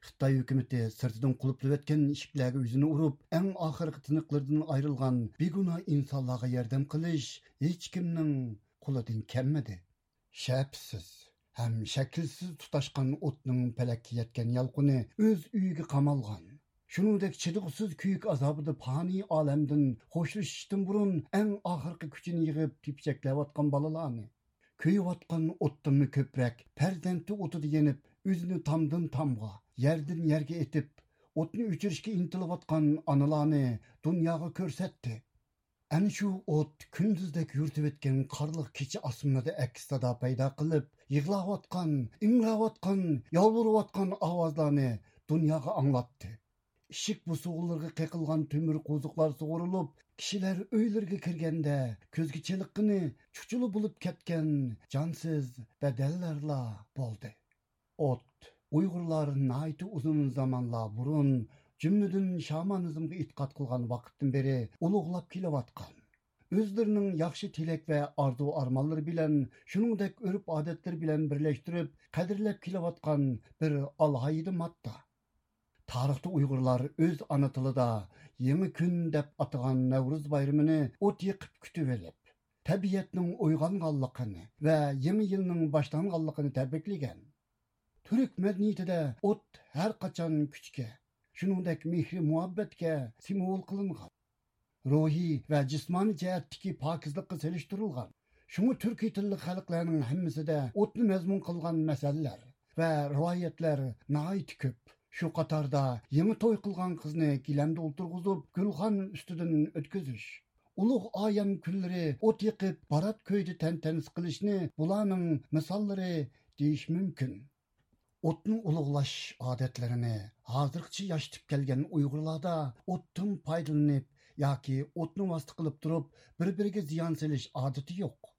خىتاي ھۆكۈمىتى سىرتىدىن قۇلۇپلىۋەتكەن ئىشىكلەرگە يۈزىنى ئۇرۇپ، ئەڭ ئاخىرقى تىنىقلىرىدىن ئايرىلغان بىگۇناھ ئىنسانلارغا ياردەم قىلىش ھېچكىمنىڭ قولىدىن كەلمىدى. شەپىسىز ھەم شەكىلسىز تۇتاشقان ئوتنىڭ پەلەككە يەتكەن يالقۇنى ئۆز ئۆيىگە قامالغان، شۇنىڭدەك چىدىغۇسىز كۆيۈك ئازابىدا پانىي ئالەمدىن خوشلىشىشتىن بۇرۇن ئەڭ ئاخىرقى كۈچىنى يىغىپ تېپىچەكلەۋاتقان بالىلارنى، كۆيۈۋاتقان ئوتتىنمۇ كۆپرەك پەرزەنتى ئوتىدا يېنىپ، ئۆزىنى تامدىن تامغا، يەردىن يەرگە ئېتىپ، ئوتنى ئۆچۈرۈشكە ئىنتىلىۋاتقان ئانىلارنى دۇنياغا كۆرسەتتى. ئەنە شۇ ئوت كۈندۈزدەك يورۇتۇۋەتكەن قارلىق كېچە ئاسمىنىدا ئەكس سادا پەيدا قىلىپ، يىغلاۋاتقان، ئىڭراۋاتقان، يالۋۇرۇۋاتقان ئاۋازلارنى دۇنياغا ئاڭلاتتى. ئىشىك بوسۇغىلىرىغا قېقىلغان تۆمۈر قوزۇقلار سۇغۇرۇلۇپ، كىشىلەر ئۆيلىرىگە كىرگەندە كۆزگە چېلىققىنى چۇچۇلا بولۇپ كەتكەن جانسىز بەدەنلەرلا بولدى. ئوت. ئۇيغۇرلار ناھايىتى ئۇزۇن زامانلار بۇرۇن، جۈملىدىن شامانىزمغا ئېتىقاد قىلغان ۋاقىتتىن بېرى ئۇلۇغلاپ كېلىۋاتقان، ئۆزلىرىنىڭ ياخشى تىلەك ۋە ئارزۇ-ئارمانلىرى بىلەن، شۇنىڭدەك ئۆرپ-ئادەتلىرى بىلەن بىرلەشتۈرۈپ قەدىرلەپ كېلىۋاتقان بىر ئالاھىدە ماددا. تارىختا ئۇيغۇرلار ئۆز ئانا تىلىدا يېڭى كۈن دەپ ئاتىغان نەۋرۇز بايرىمىنى ئوت يېقىپ كۈتۈۋېلىپ، تەبىئەتنىڭ ئويغانغانلىقىنى ۋە يېڭى يىلنىڭ باشلانغانلىقىنى تەبرىكلىگەن. تۈرك مەدەنىيىتىدە ئوت ھەر قاچان كۈچكە، شۇنىڭدەك مېھرى مۇھەببەتكە سىمۋول قىلىنغان. روھىي ۋە جىسمانىي جەھەتتىكى پاكىزلىققا سېلىشتۇرۇلغان. شۇڭا تۈركىي تىللىق خەلقلەرنىڭ ھەممىسىدە ئوتنى مەزمۇن قىلغان مەسەللەر ۋە رىۋايەتلەر ناھايىتى كۆپ. شۇ قاتاردا يېڭى توي قىلغان قىزنى گىلەمدە ئولتۇرغۇزۇپ، گۈلخان ئۈستىدىن ئۆتكۈزۈش، ئۇلۇغ ئايەم كۈنلىرى ئوت يېقىپ، بارات كۆيدى تەنتەنىسى قىلىشنى بۇلارنىڭ مىساللىرى دېيىش مۇمكىن. ئوتنى ئۇلۇغلاش ئادەتلىرىنى ھازىرغىچە ياشىتىپ كەلگەن ئۇيغۇرلاردا ئوتتىن پايدىلىنىپ ياكى ئوتنى ۋاسىتە قىلىپ تۇرۇپ بىر-بىرىگە زىيان سېلىش ئادىتى يوق.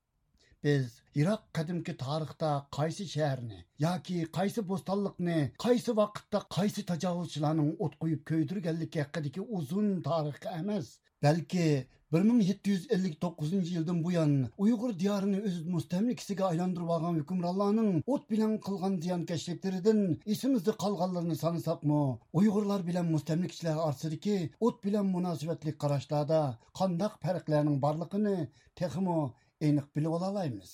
بىز يىراق قەدىمكى تارىختا قايسى شەھەرنى ياكى قايسى بوستانلىقنى قايسى ۋاقىتتا قايسى تاجاۋۇزچىلارنىڭ ئوت قويۇپ كۆيدۈرگەنلىكى ھەققىدىكى ئۇزۇن تارىخقا ئەمەس، بەلكى بىر مىڭ يەتتە يۈز ئەللىك توققۇزىنچى يىلدىن بۇيان ئۇيغۇر دىيارىنى ئۆز مۇستەملىكىسىگە ئايلاندۇرۇۋالغان ھۆكۈمرانلارنىڭ ئوت بىلەن قىلغان زىيانكەشلىكلىرىدىن ئېسىمىزدە قالغانلىرىنى سانىساقمۇ، ئۇيغۇرلار بىلەن مۇستەملىكىچىلەر ئارىسىدىكى ئوت بىلەن مۇناسىۋەتلىك قاراشلاردا قانداق پەرقلەرنىڭ بارلىقىنى تېخىمۇ ئېنىق بىلىۋالالايمىز.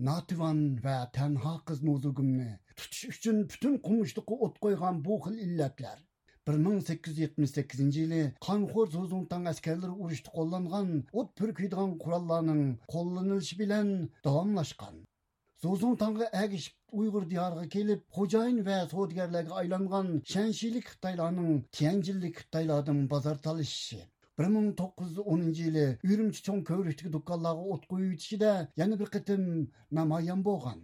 ناتىۋان ۋە تەنھا قىز نوزۇگۇمنى تۇتۇش ئۈچۈن پۈتۈن قومۇشلۇققا ئوت قويغان بۇ خىل ئىللەتلەر بىر مىڭ سەككىز يۈز يەتمىش سەككىزىنچى يىلى قانخور زۇزۇڭتاڭ ئەسكەرلىرى ئۇرۇشتا قوللانغان ئوت پۈركۈيدىغان قوراللارنىڭ قوللىنىلىشى بىلەن داۋاملاشقان. زۇزۇڭتاڭغا ئەگىشىپ ئۇيغۇر دىيارىغا كېلىپ، خوجايىن ۋە سودىگەرلەرگە ئايلانغان شەنشىلىك خىتايلارنىڭ تيەنجىنلىك خىتايلاردىن بازار تالىشىشى، بىر مىڭ توققۇز يۈز ئونىنچى يىلى ئۈرۈمچى چوڭ كۆۋرۈكتىكى دۇكانلارغا ئوت قويۇۋېتىشىدە يەنە بىر قېتىم نامايان بولغان.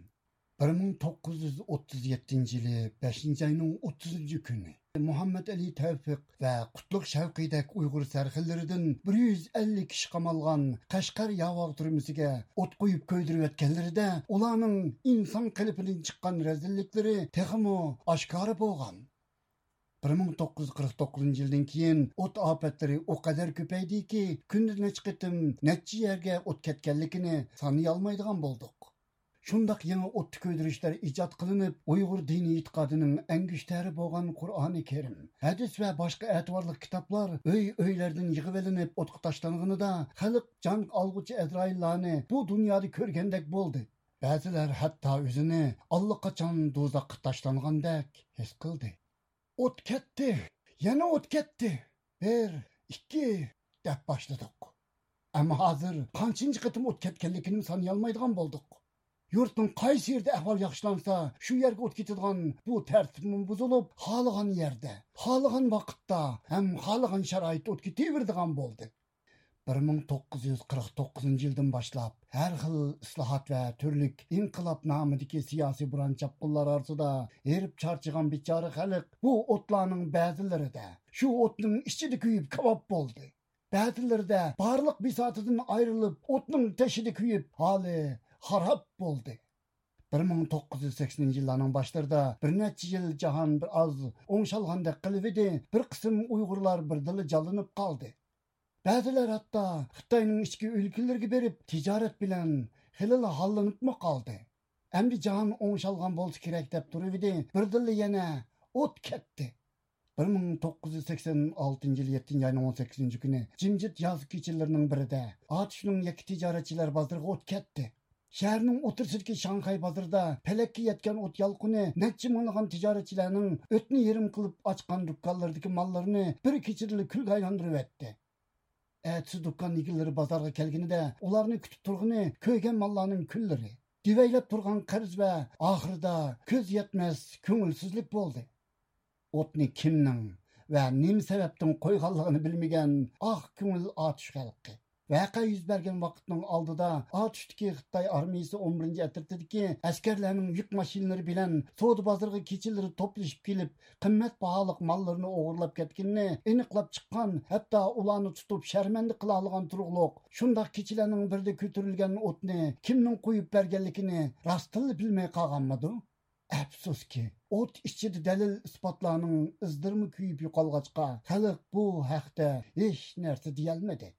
بىر مىڭ توققۇز يۈز ئوتتۇز يەتتىنچى يىلى بەشىنچى ئاينىڭ ئوتتۇزىنچى كۈنى مۇھەممەد ئەلى تەۋپىق ۋە قۇتلۇق شەۋقىيدەك ئۇيغۇر سەرخىللىرىدىن بىر يۈز ئەللىك كىشى قامالغان قەشقەر ياۋاغ تۈرمىسىگە ئوت قويۇپ كۆيدۈرۈۋەتكەنلىرىدە، ئۇلارنىڭ ئىنسان قېلىپىدىن چىققان رەزىللىكلىرى تېخىمۇ ئاشكارا بولغان. بىر مىڭ توققۇز يۈز قىرىق توققۇزىنچى يىلدىن كېيىن ئوت ئاپەتلىرى ئۇ قەدەر كۆپەيدىكى، كۈندە نەچچە قېتىم نەچچە يەرگە ئوت كەتكەنلىكىنى سانىيالمايدىغان بولدۇق. شۇنداق يېڭى ئوتتا كۆيدۈرۈشلەر ئىجاد قىلىنىپ، ئۇيغۇر دىنىي ئېتىقادىنىڭ ئەڭگۈشتەرى بولغان قۇرئانى كەرىم، ھەدىس ۋە باشقا ئەتىۋارلىق كىتابلار ئۆي-ئۆيلەردىن يىغىۋېلىنىپ ئوتقا تاشلانغىنىدا، خەلق جان ئالغۇچى ئەزرائىللارنى بۇ دۇنيادا كۆرگەندەك بولدى. بەزىلەر ھەتتا ئۆزىنى ئاللىقاچان دوزاخقا تاشلانغاندەك ھېس قىلدى. «ئوت كەتتى! يەنە ئوت كەتتى! بىر، ئىككى!» دەپ باشلىدۇق. ئەمما ھازىر قانچىنچى قېتىم ئوت كەتكەنلىكىنىمۇ سانىيالمايدىغان بولدۇق. يۇرتنىڭ قايسى يېرىدە ئەھۋال ياخشىلانسا، شۇ يەرگە ئوت كېتىدىغان بۇ تەرتىپمۇ بۇزۇلۇپ، خالىغان يەردە، خالىغان ۋاقىتتا ھەم خالىغان شارائىتتا ئوت كېتىۋېرىدىغان بولدى. بىر مىڭ توققۇز يۈز قىرىق توققۇزىنچى يىلدىن باشلاپ، ھەر خىل ئىسلاھات ۋە تۈرلۈك ئىنقىلاب نامىدىكى سىياسىي بوران-چاپقۇنلار ئارىسىدا ھېرىپ-چارچىغان بىچارە خەلق بۇ ئوتلارنىڭ بەزىلىرىدە، شۇ ئوتنىڭ ئىچىدە كۆيۈپ كاۋاپ بولدى. بەزىلىرىدە بارلىق بىساتىدىن ئايرىلىپ، ئوتنىڭ تېشىدا كۆيۈپ، ھالى خاراب بولدى. بىر مىڭ توققۇز يۈز سەكسىنىنچى يىللارنىڭ باشلىرىدا بىر نەچچە يىل جاھان بىر ئاز ئوڭشالغاندەك قىلىۋىدى، بىر قىسىم ئۇيغۇرلار بىردىنلا جانلىنىپ قالدى. بەزىلەر ھەتتا خىتاينىڭ ئىچكى ئۆلكىلىرىگە بېرىپ، تىجارەت بىلەن خېلىلا ھاللىنىپمۇ قالدى. ئەمدى جاھان ئوڭشالغان بولسا كېرەك دەپ تۇرۇۋىدى، بىردىنلا يەنە ئوت كەتتى. بىر مىڭ توققۇز يۈز سەكسەن ئالتىنچى يىل يەتتىنچى ئاينىڭ ئون سەككىزىنچى كۈنى جىمجىت ياز كېچىلىرىنىڭ بىرىدە ئاتۇشنىڭ يەككە تىجارەتچىلەر بازىرىغا ئوت كەتتى. شەھەرنىڭ ئوتتۇرىسىدىكى شاڭخەي بازىرىدا پەلەككە يەتكەن ئوت يالقۇنى نەچچە مىڭلىغان تىجارەتچىلەرنىڭ ئۆتنە يېرىم قىلىپ ئاچقان دۇكانلىرىدىكى ماللىرىنى بىر كېچىدىلا كۈلگە ئايلاندۇرۇۋەتتى. ئەتىسى دۇكان ئىگىلىرى بازارغا كەلگىنىدە، ئۇلارنى كۈتۈپ تۇرغىنى كۆيگەن ماللارنىڭ كۈنلىرى، دېۋەيلەپ تۇرغان قەرز ۋە ئاخىرىدا كۆز يەتمەس كۆڭۈلسىزلىك بولدى. ئوتنى كىمنىڭ ۋە نېمە سەۋەبتىن قويغانلىقىنى بىلمىگەن ئاق كۆڭۈل ئاتۇش خەلقى. ۋەقە يۈز بەرگەن ۋاقىتنىڭ ئالدىدا ئاتۇشتىكى خىتاي ئارمىيىسى ئون بىرىنچى ئەترىتىدىكى ئەسكەرلەرنىڭ يۈك ماشىنىلىرى بىلەن سودا بازىرىغا كېچىلىرى توپلىشىپ كېلىپ، قىممەت باھالىق ماللىرىنى ئوغرىلاپ كەتكىنىنى ئېنىقلاپ چىققان، ھەتتا ئۇلارنى تۇتۇپ شەرمەندە قىلالىغان تۇرۇقلۇق شۇنداق كېچىلەرنىڭ بىرىدە كۆتۈرۈلگەن ئوتنى كىمنىڭ قويۇپ بەرگەنلىكىنى راستتىنلا بىلمەي قالغانمىدۇ؟ ئەپسۇسكى، ئوت ئىچىدە دەلىل-ئىسپاتلارنىڭ ئىزلىرىمۇ كۆيۈپ يوقالغاچقا، خەلق بۇ ھەقتە ھېچ نەرسە دېيەلمىدى.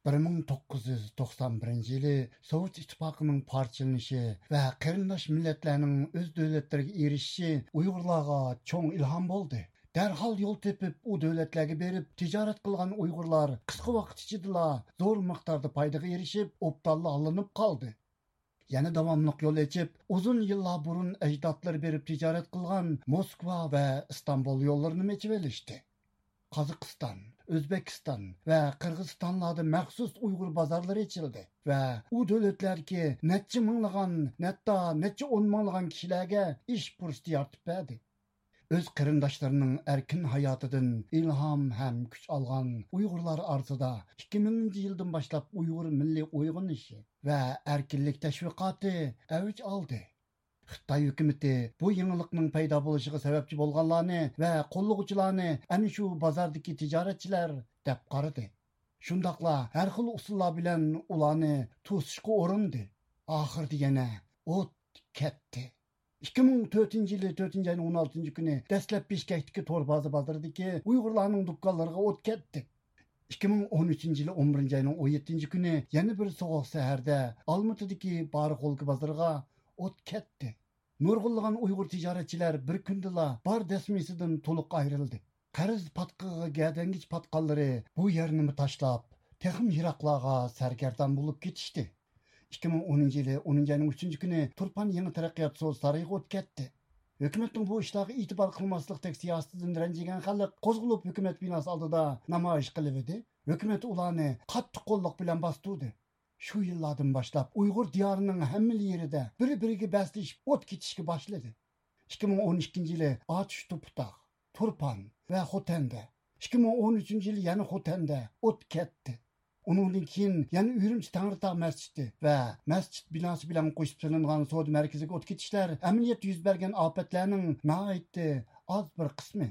بىر مىڭ توققۇز يۈز توقسان بىرىنچى يىلى سوۋېت ئىتتىپاقىنىڭ پارچىلىنىشى ۋە قېرىنداش مىللەتلەرنىڭ ئۆز دۆلەتلىرىگە ئېرىشىشى ئۇيغۇرلارغا چوڭ ئىلھام بولدى. دەرھال يول تېپىپ، ئۇ دۆلەتلەرگە بېرىپ تىجارەت قىلغان ئۇيغۇرلار قىسقا ۋاقىت ئىچىدىلا زور مىقداردا پايدىغا ئېرىشىپ، ئوبدانلا ھاللىنىپ قالدى. يەنە داۋاملىق يول ئېچىپ، ئۇزۇن يىللار بۇرۇن ئەجدادلىرى بېرىپ تىجارەت قىلغان موسكۋا ۋە ئىستانبۇل يوللىرىنىمۇ ئېچىۋېلىشتى. قازاقىستان، ئۆزبېكىستان ۋە قىرغىزىستانلاردا مەخسۇس ئۇيغۇر بازارلىرى ئېچىلدى ۋە ئۇ دۆلەتلەردىكى نەچچە مىڭلىغان، ھەتتا نەچچە ئون مىڭلىغان كىشىلەرگە ئىش پۇرسىتى يارىتىپ بەردى. ئۆز قېرىنداشلىرىنىڭ ئەركىن ھاياتىدىن ئىلھام ھەم كۈچ ئالغان ئۇيغۇرلار ئارىسىدا ئىككى مىڭىنچى يىلدىن باشلاپ ئۇيغۇر مىللىي ئويغىنىشى ۋە ئەركىنلىك تەشۋىقاتى ئەۋج ئالدى. خىتاي ھۆكۈمىتى بۇ يېڭىلىقنىڭ پەيدا بولۇشىغا سەۋەبچى بولغانلارنى ۋە قوللىغۇچىلارنى ئەنە شۇ بازاردىكى تىجارەتچىلەر دەپ قارىدى. شۇنداقلا ھەر خىل ئۇسۇللار بىلەن ئۇلارنى توسۇشقا ئۇرۇندى. ئاخىرىدا يەنە ئوت كەتتى. ئىككى مىڭ تۆتىنچى يىلى تۆتىنچى ئاينىڭ ئون ئالتىنچى كۈنى دەسلەپ بىشكەكتىكى تور بازا بازىرىدىكى ئۇيغۇرلارنىڭ دۇكانلىرىغا ئوت كەتتى. ئىككى مىڭ ئون ئۈچىنچى يىلى ئون بىرىنچى ئاينىڭ ئون يەتتىنچى كۈنى يەنە بىر سوغۇق سەھەردە ئالمۇتىدىكى بارغولكا بازىرىغا ئوت كەتتى. نۇرغۇنلىغان ئۇيغۇر تىجارەتچىلەر بىر كۈندىلا بار دەسمىسىدىن تولۇق ئايرىلدى. قەرز پاتقىقىغا گەدەنگىچە پاتقانلىرى بۇ يەرنىمۇ تاشلاپ، تېخىمۇ يىراقلارغا سەرگەردان بولۇپ كېتىشتى. ئىككى مىڭ ئونىنچى يىلى ئونىنچى ئاينىڭ ئۈچىنچى كۈنى تۇرپان يېڭى تەرەققىيات سودا سارىيىغا ئوت كەتتى. ھۆكۈمەتنىڭ بۇ ئىشلارغا ئېتىبار قىلماسلىقتەك سىياسىتىدىن رەنجىگەن خەلق قوزغىلىپ ھۆكۈمەت بىناسى ئالدىدا نامايىش قىلىۋىدى. ھۆكۈمەت ئۇلارنى قاتتىق قوللۇق بىلەن باستۇردى. شۇ يىللاردىن باشلاپ ئۇيغۇر دىيارىنىڭ ھەممىلا يېرىدە بىر-بىرىگە بەسلىشىپ ئوت كېتىشكە باشلىدى. ئىككى مىڭ ئون ئىككىنچى يىلى ئاتۇش توپىتاغ، تۇرپان ۋە خوتەندە، ئىككى مىڭ ئون ئۈچىنچى يىلى يەنە خوتەندە ئوت كەتتى. ئۇنىڭدىن كېيىن يەنە ئۈرۈمچى تەڭرىتاغ مەسچىتى ۋە مەسچىت بىناسى بىلەن قوشۇپ سېلىنغان سودا مەركىزىگە ئوت كېتىشلەر ئەمەلىيەتتە يۈز بەرگەن ئاپەتلەرنىڭ ناھايىتى ئاز بىر قىسمى.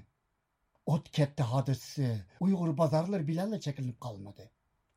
ئوت كەتتى ھادىسىسى ئۇيغۇر بازارلىرى بىلەنلا چەكلىنىپ قالمىدى.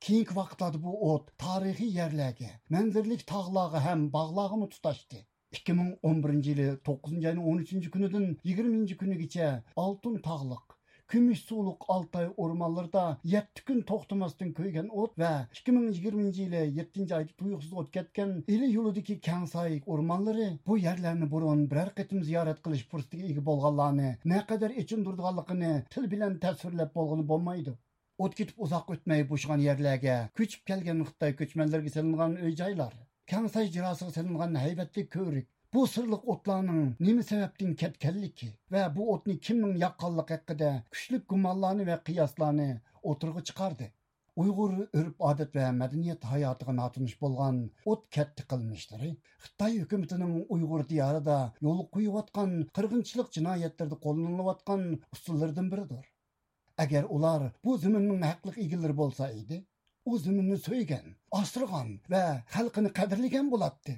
كېيىنكى ۋاقىتلاردا بۇ ئوت تارىخىي يەرلەرگە، مەنزىرىلىك تاغلارغا ھەم باغلارغىمۇ تۇتاشتى. ئىككى مىڭ ئون بىرىنچى يىلى توققۇزىنچى ئاينىڭ ئون ئۈچىنچى كۈنىدىن يىگىرمىنچى كۈنىگىچە ئالتۇن تاغلىق، كۈمۈش سۇلۇق ئالتاي ئورمانلىرىدا يەتتە كۈن توختىماستىن كۆيگەن ئوت ۋە ئىككى مىڭ يىگىرمىنچى يىلى يەتتىنچى ئايدا تۇيۇقسىز ئوت كەتكەن ئىلى يولىدىكى كەڭساي ئورمانلىرى بۇ يەرلەرنى بۇرۇن بىرەر قېتىم زىيارەت قىلىش پۇرسىتىگە ئىگە بولغانلارنى نەقەدەر ئېچىندۇرىدىغانلىقىنى تىل بىلەن تەسۋىرلەپ بولغىلى بولمايدۇ. ئوت كېتىپ ئۇزاق ئۆتمەي بوشىغان يەرلەرگە كۆچۈپ كەلگەن خىتاي كۆچمەنلىرىگە سېلىنغان ئۆي-جايلار، كەڭساي جىراسىغا سېلىنغان ھەيۋەتلىك كۆۋرۈك، بۇ سىرلىق ئوتلارنىڭ نېمە سەۋەبتىن كەتكەنلىكى ۋە بۇ ئوتنى كىمنىڭ ياققانلىقى ھەققىدە كۈچلۈك گۇمانلارنى ۋە قىياسلارنى ئوتتۇرىغا چىقاردى. ئۇيغۇر ئۆرپ-ئادەت ۋە مەدەنىيەت ھاياتىغا ناتونۇش بولغان ئوت كەتتى قىلمىشلىرى خىتاي ھۆكۈمىتىنىڭ ئۇيغۇر دىيارىدا يولغا قويۇۋاتقان قىرغىنچىلىق جىنايەتلىرىدە قوللىنىلىۋاتقان ئۇسۇللىرىدىن بىرىدۇر. ئەگەر ئۇلار بۇ زېمىننىڭ ھەقلىق ئىگىلىرى بولسا ئىدى، ئۇ زېمىننى سۆيگەن، ئاسرىغان ۋە خەلقىنى قەدىرلىگەن بولاتتى.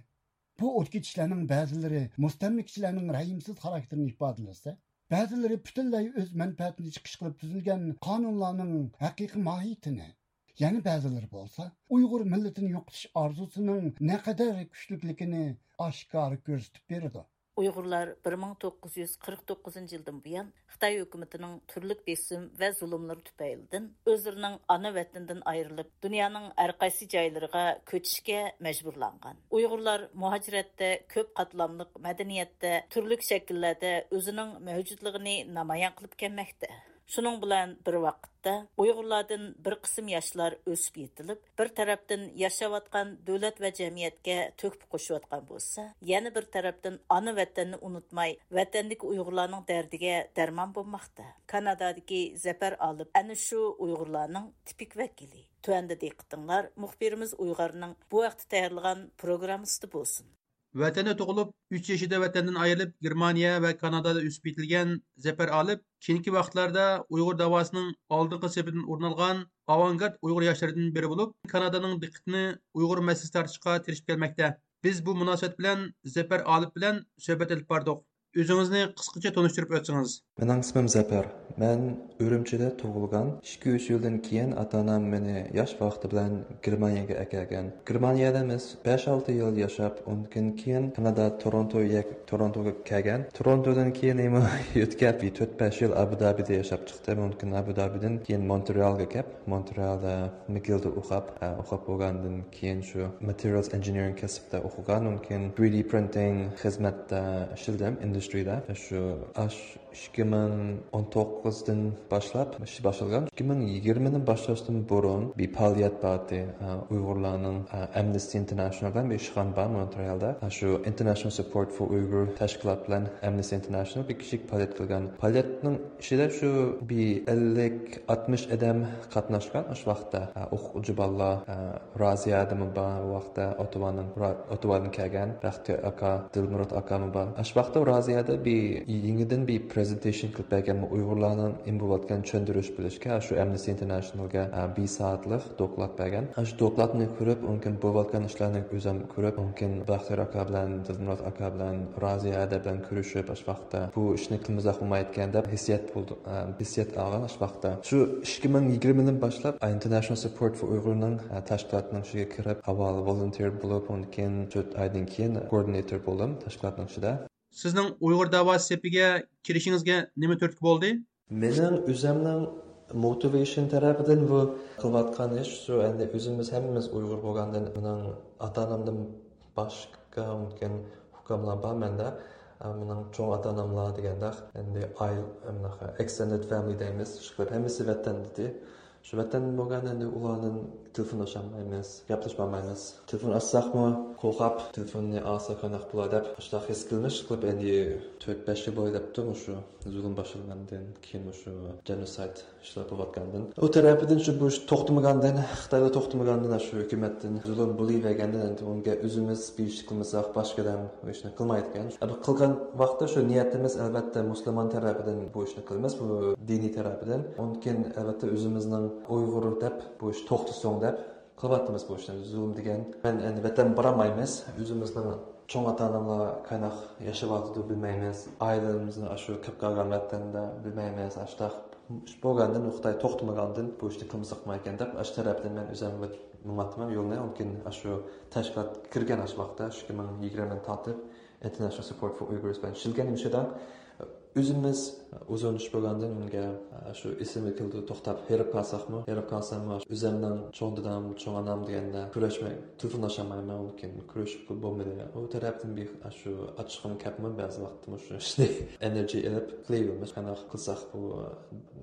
بۇ ئوت كېتىشلەرنىڭ بەزىلىرى مۇستەملىكىچىلەرنىڭ رەھىمسىز خاراكتېرىنى ئىپادىلىسە، بەزىلىرى پۈتۈنلەي ئۆز مەنپەئەتىنى چىقىش قىلىپ تۈزۈلگەن قانۇنلارنىڭ ھەقىقىي ماھىيىتىنى، يەنە بەزىلىرى بولسا ئۇيغۇر مىللىتىنى يوقىتىش ئارزۇسىنىڭ نەقەدەر كۈچلۈكلۈكىنى ئاشكارا كۆرسىتىپ بېرىدۇ. ئۇيغۇرلار بىر مىڭ توققۇز يۈز قىرىق توققۇزىنچى يىلدىن بۇيان خىتاي ھۆكۈمىتىنىڭ تۈرلۈك بېسىم ۋە زۇلۇملىرى تۈپەيلىدىن ئۆزلىرىنىڭ ئانا ۋەتىنىدىن ئايرىلىپ، دۇنيانىڭ ھەر قايسى جايلىرىغا كۆچۈشكە مەجبۇرلانغان. ئۇيغۇرلار مۇھاجىرەتتە كۆپ قاتلاملىق مەدەنىيەتتە، تۈرلۈك شەكىللەردە ئۆزىنىڭ مەۋجۇتلۇقىنى نامايان قىلىپ كەلمەكتە. شۇنىڭ بىلەن بىر ۋاقىتتا، ئۇيغۇرلاردىن بىر قىسىم ياشلار ئۆسۈپ يېتىلىپ، بىر تەرەپتىن ياشاۋاتقان دۆلەت ۋە جەمئىيەتكە تۆھپە قوشۇۋاتقان بولسا، يەنە بىر تەرەپتىن ئانا ۋەتەننى ئۇنتۇماي، ۋەتەندىكى ئۇيغۇرلارنىڭ دەردىگە دەرمان بولماقتا. كانادادىكى زەپەر ئالىپ ئەنە شۇ ئۇيغۇرلارنىڭ تىپىك ۋەكىلى. تۆۋەندە دىققىتىڭلار مۇخبىرىمىز ئۇيغارنىڭ بۇ ھەقتە تەييارلىغان پروگراممىسىدا بولسۇن. ۋەتەندە تۇغۇلۇپ، ئۈچ يېشىدا ۋەتەندىن ئايرىلىپ، گېرمانىيە ۋە كانادادا ئۆسۈپ يېتىلگەن زەپەر ئالىپ كېيىنكى ۋاقىتلاردا ئۇيغۇر داۋاسىنىڭ ئالدىنقى سېپىدىن ئورۇن ئالغان ئاۋانگارت ئۇيغۇر ياشلىرىدىن بىرى بولۇپ، كانادانىڭ دىققىتىنى ئۇيغۇر مەسىلىسىگە تارتىشقا تىرىشىپ كەلمەكتە. بىز بۇ مۇناسىۋەت بىلەن زەپەر ئالىپ بىلەن سۆھبەت ئېلىپ باردۇق. ئۆزىڭىزنى قىسقىچە تونۇشتۇرۇپ ئۆتسىڭىز. مېنىڭ ئىسمىم زەپەر. مەن ئۈرۈمچىدە تۇغۇلغان. ئىككى-ئۈچ يىلدىن كېيىن ئاتا-ئانام مېنى ياش ۋاقتى بىلەن گېرمانىيەگە ئەكەلگەن. گېرمانىيەدە بىز بەش-ئالتە يىل ياشاپ، ئۇنىڭدىن كېيىن كانادا تورونتو يەك-، تورونتوغا كەلگەن. تورونتودىن كېيىن يەنە يۆتكەپ، تۆت-بەش يىل ئابۇ دابىدا ياشاپ چىقتىم. ئۇنىڭدىن كېيىن ئابۇ دابىدىن كېيىن مونترېئالغا كەپ، مونترېئالدا مىگىلدا ئوقۇپ، ئە، ئوقۇپ بولغاندىن كېيىن شۇ materials engineering كەسىپتە ئوقۇغان، ئۇنىڭدىن كېيىن three D printing خىزمەتتە ئىشلىدىم، ئىندۇسترىيىدا. شۇ ئاش ئىككى مىڭ ئون توققۇزدىن باشلاپ ئىش باشلىغان. ئىككى مىڭ يىگىرمىنى باشلاشتىن بۇرۇن بىر پائالىيەت بار ئىدى. ئۇيغۇرلارنىڭ ئەمنىستى ئىنتېرناشنال بىلەن بىر ئىشخانا بار مونترېئالدا. شۇ International Support for Uyghur تەشكىلات بىلەن ئەمنىستى ئىنتېرناشنال بىر كىچىك پائالىيەت قىلغان. پائالىيەتنىڭ ئىچىدە شۇ بىر ئەللىك ئاتمىش ئادەم قاتناشقان ئاشۇ ۋاقىتتا. ئوقۇغۇچى بالىلار، رازىيە ئادىمى بار، ئۇ ۋاقىتتا ئوتتاۋادىن كەلگەن بەختىيار ئاكا، دىلمۇرات ئاكامۇ بار. ئاشۇ ۋاقىتتا رازىيەدە بىر يېڭىدىن بىر پرېزېنتېيشن قىلىپ بەرگەن، ئۇيغۇرلارنىڭ نېمە بولۇۋاتقانلىقىنى چۈشەندۈرۈش بېرىشكە شۇ ئەمنىستى ئىنتېرناشنالغا بىر سائەتلىك دوكلات بەرگەن. شۇ دوكلاتنى كۆرۈپ، ئۇنىڭ كېيىن بولۇۋاتقان ئىشلارنى ئۆزۈم كۆرۈپ، ئۇنىڭ كېيىن بەختىيار ئاكا بىلەن، دىلمۇرات ئاكا بىلەن، رازىيە ھەدە بىلەن كۆرۈشۈپ، ئاشۇ ۋاقىتتا بۇ ئىشنى قىلمىساق بولمايدىكەن دەپ ھېسسىيات بولدى، ھېسسىيات ئالغان ئاشۇ ۋاقىتتا. شۇ ئىككى مىڭ يىگىرمىدىن باشلاپ International Support for Uyghurنىڭ تەشكىلاتنىڭ ئىچىگە كىرىپ، ئاۋۋال ۋولۇنتېر بولۇپ، ئۇنىڭ كېيىن تۆت ئايدىن كېيىن كوئوردىناتور بولدۇم تەشكىلاتنىڭ ئىچىدە. سىزنىڭ ئۇيغۇر دەۋاسى سېپىگە كىرىشىڭىزگە نېمە تۈرتكە بولدى؟ مېنىڭ ئۆزۈمنىڭ موتىۋېيشن تەرەپىدىن بۇ قىلىۋاتقان ئىش شۇ، ئەمدى ئۆزىمىز ھەممىمىز ئۇيغۇر بولغاندىن، مېنىڭ ئاتا-ئانامدىن باشقا مۇمكىن ئۇكاملار بار مەندە. مېنىڭ چوڭ ئاتا-ئاناملار دېگەندەك، ئەمدى ئائىلە، ئەمدى ئېكستېندېد فامىلى دەيمىز، ئىشقىلىپ ھەممىسى ۋەتەندىدى. شۇ ۋەتەن بولغان ئەمدى ئۇلاردىن تېلېفون ئاچالمايمىز، گەپلىشەلمەيمىز. تېلېفون ئاچساقمۇ قورقۇپ، تېلېفوننى ئالسا قانداق بولا دەپ، ئاشۇنداق ھېس قىلمىش قىلىپ، ئەمدى تۆت بەش يىل بويى دەپتۇ مۇشۇ زۇلۇم باشلانغاندىن كېيىن، مۇشۇ جېنوسايد ئىشلار بولۇۋاتقاندىن. ئۇ تەرەپىدىن شۇ بۇ ئىش توختىمىغاندىن، خىتايدا توختىمىغاندىن، شۇ ھۆكۈمەتتىن زۇلۇم بولۇۋەرگەندىن، ئەمدى ئۇنىڭغا ئۆزىمىز بىر ئىش قىلمىساق، باشقا ئادەم بۇ ئىشنى قىلمايدىكەن. ئەمدى قىلغان ۋاقىتتا شۇ نىيىتىمىز، ئەلۋەتتە، مۇسۇلمان تەرەپىدىن بۇ ئىشنى قىلىمىز، بۇ دىنىي تەرەپىدىن. ئۇنىڭ كېيىن، ئەلۋەتتە، ئۆزىمىزنىڭ ئۇيغۇر دەپ، بۇ ئىش توختىسۇن دەپ قىلىۋاتىمىز بۇ ئىشنى. زۇلۇم دېگەن، مەن ئەمدى ۋەتەن بارالمايمىز. ئۆزىمىزنىڭ چوڭ ئاتا-ئاناملار قانداق ياشاۋاتىدۇ بىلمەيمىز. ئائىلىمىزنى ئاشۇ كېلىپ قالغان ۋەتەندە بىلمەيمىز. ئاشۇنداق ئىش بولغاندىن، خىتاي توختىمىغاندىن بۇ ئىشنى قىلمىساق بولمايدىكەن دەپ، ئاشۇ تەرەپتىن مەن ئۆزۈم مېڭىۋاتىمەن يولنى. ئۇنىڭ كېيىن ئاشۇ تەشكىلات كىرگەن ئاشۇ ۋاقىتتا، ئىككى مىڭ يىگىرمىدىن تارتىپ International Support for Uyghurs بىلەن ئىشلىگەن مۇشۇ يەردە. ئۆزىمىز ئۇزۇن ئىش بولغاندىن ئۇنىڭغا شۇ ئېسىمگە كېلىدۇ، توختاپ ھېرىپ قالساقمۇ، ھېرىپ قالساممۇ، ئۆزۈمنىڭ چوڭ دادام، چوڭ ئانام دېگەندە كۆرۈشمەي، تېلېفونلاشالمايمەن، ئۇنىڭ كېيىن كۆرۈشۈپ بولمىدى. ئۇ تەرەپتىن بىر شۇ ئاچچىقىم كەپمۇ بەزى ۋاقىتتا مۇشۇ ئىشنى ئېنېرجى ئېلىپ قىلىۋېرىمىز. قانداق قىلساق بۇ،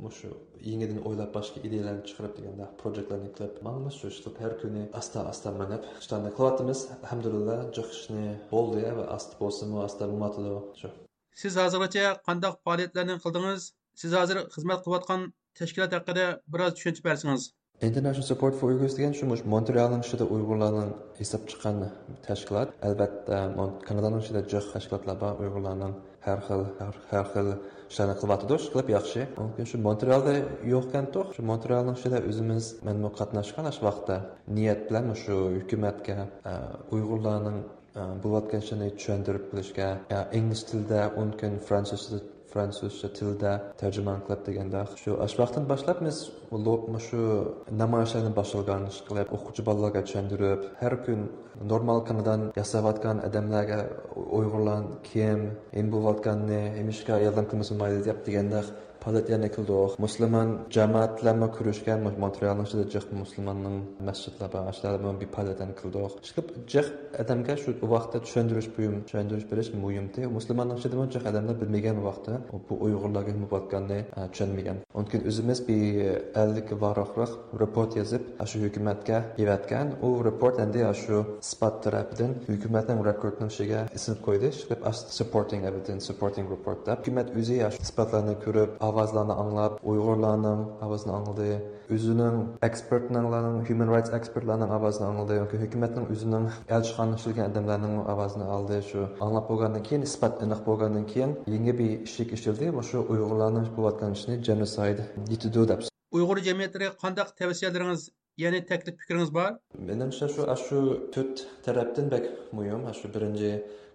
مۇشۇ يېڭىدىن ئويلاپ، باشقا ئىدىيەلەرنى چىقىرىپ دېگەندە، پروجېكتلارنى قىلىپ ماڭىمىز، شۇ ئىشلەپ ھەر كۈنى ئاستا ئاستا مېڭىپ ئىشلارنى قىلىۋاتىمىز. ئەلھەمدۇلىللا، جىق ئىشنى بولدى ۋە ئاستا بولسىمۇ، ئاستا مېڭىۋاتىدۇ. شۇ. سىز ھازىرغىچە قانداق پائالىيەتلەرنى قىلدىڭىز؟ سىز ھازىر خىزمەت قىلىۋاتقان تەشكىلات ھەققىدە بىراز چۈشەنچە بەرسىڭىز. International Support for Uyghurs دېگەن شۇ مۇشۇ مونترېئالنىڭ ئىچىدە ئۇيغۇرلارنىڭ ھېساب چىققان تەشكىلات. ئەلۋەتتە، مون-، كانادانىڭ ئىچىدە جىق تەشكىلاتلار بار، ئۇيغۇرلارنىڭ ھەر خىل، ھەر، ھەر خىل ئىشلارنى قىلىۋاتىدۇ، ئىشقىلىپ ياخشى. مۇمكىن شۇ مونترېئالدا يوقكەنتۇق، شۇ مونترېئالنىڭ ئىچىدە ئۆزىمىز، مەنمۇ قاتناشقان شۇ ۋاقىتتا نىيەت بىلەن مۇشۇ ھۆكۈمەتكە، ئە، ئۇيغۇرلارنىڭ بولۇۋاتقان ئىشلارنى چۈشەندۈرۈپ بېرىشكە، يا ئىنگلىز تىلىدا، ئۇنىڭ كېيىن فرانسۇزچە، فرانسۇزچە تىلدا تەرجىمە قىلىپ دېگەندەك. شۇ، ئاشۇ ۋاقىتتىن باشلاپ بىز مۇشۇ نامايىشلارنى باشلىغان، ئىشقىلىپ ئوقۇغۇچى بالىلارغا چۈشەندۈرۈپ، ھەر كۈن نورمال كانادان ياساۋاتقان ئادەملەرگە ئۇيغۇرلار كىم، نېمە بولۇۋاتقاننى، نېمىشقا ياردەم قىلمىسا بولمايدۇ دەپ دېگەندەك پائالىيەتلەرنى قىلدۇق. مۇسۇلمان جامائەتلەرمۇ كۆرۈشكەن، مۇ-، مونترېئالنىڭ ئىچىدە جىق مۇسۇلماننىڭ مەسچىتلىرى بار، ئاشۇلاردا بىر پائالىيەتلەرنى قىلدۇق. ئىشقىلىپ جىق ئادەمگە شۇ ۋاقىتتا چۈشەندۈرۈش مۇھىم، چۈشەندۈرۈش بېرىش مۇھىمتى. مۇسۇلماننىڭ ئىچىدىمۇ جىق ئادەملەر بىلمىگەن ۋاقىتتا بۇ ئۇيغۇرلارغا نېمە بولۇۋاتقاننى، ئە، چۈشەنمىگەن. ئۇنىڭ كېيىن ئۆزىمىز بىر ئەللىككە ۋاراقلىق رېپورت يېزىپ، ئاشۇ ھۆكۈمەتكە ئېۋەتكەن. ئۇ رېپورت ئەمدى ئاشۇ ئىسپات تەرەپىدىن ھۆكۈمەتنىڭ رېكوردىنىڭ ئىچىگە ئېسىلىپ قويدى. ئىشقىلىپ ئاشۇ سۇپورتىڭ ئېۋىدېنس، سۇپورتىڭ رېپورت دەپ. ھۆكۈمەت ئۆزى ئاشۇ ئىسپاتلارنى كۆرۈپ، ئاۋازلارنى ئاڭلاپ، ئۇيغۇرلارنىڭ ئاۋازىنى ئاڭلىدى. ئۆزىنىڭ ئېكسپېرتلارنىڭ، ھيۇمەن رايتس ئېكسپېرتلارنىڭ ئاۋازىنى ئاڭلىدى. ياكى ھۆكۈمەتنىڭ ئۆزىنىڭ ئەلچىخانىدا ئىشلىگەن ئادەملەرنىڭ ئاۋازىنى ئالدى. شۇ ئاڭلاپ بولغاندىن كېيىن، ئىسپات ئېنىق بولغاندىن كېيىن، يېڭى بىر ئىشىك ئېچىلدى. مۇشۇ ئۇيغۇرلارنىڭ قىلىۋاتقان ئىشىنى جېنوسايد دېيىلىدۇ دەپ. ئۇيغۇر جەمئىيەتلىرىگە قانداق تەۋسىيەلىرىڭىز، يەنى تەكلىپ پىكرىڭىز بار؟ مېنىڭچە شۇ، ئاشۇ تۆت تەرەپتىن بەك مۇھىم. ئاشۇ بىرىنچى،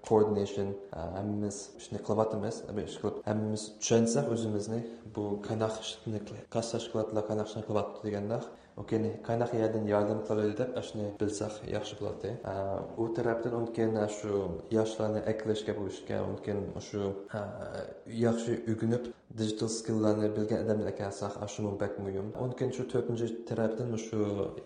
كوئوردىنېيشن، ھەممىمىز ئىشنى قىلىۋاتىمىز، ئىشقىلىپ ھەممىمىز چۈشەنسەك ئۆزىمىزنى، بۇ قانداق ئىشنى قىل-، قايسى تەشكىلاتلار قانداق ئىشنى قىلىۋاتىدۇ دېگەندەك، ئۇنىڭ كېيىن قانداق يەردىن ياردەم قىلالايدۇ دەپ ئاشۇنى بىلسەك ياخشى بولاتتى. ئە، ئۇ تەرەپتىن ئۇنىڭ كېيىن شۇ ياشلارنى ئەكىلىشكە بۇ ئىشكە، ئۇنىڭ كېيىن شۇ، ئە، ياخشى ئۆگىنىپ، دىجىتال سكىللارنى بىلگەن ئادەملەر ئەكەلسەك، ئاشۇمۇ بەك مۇھىم. ئۇنىڭ كېيىن شۇ تۆتىنچى تەرەپتىن مۇشۇ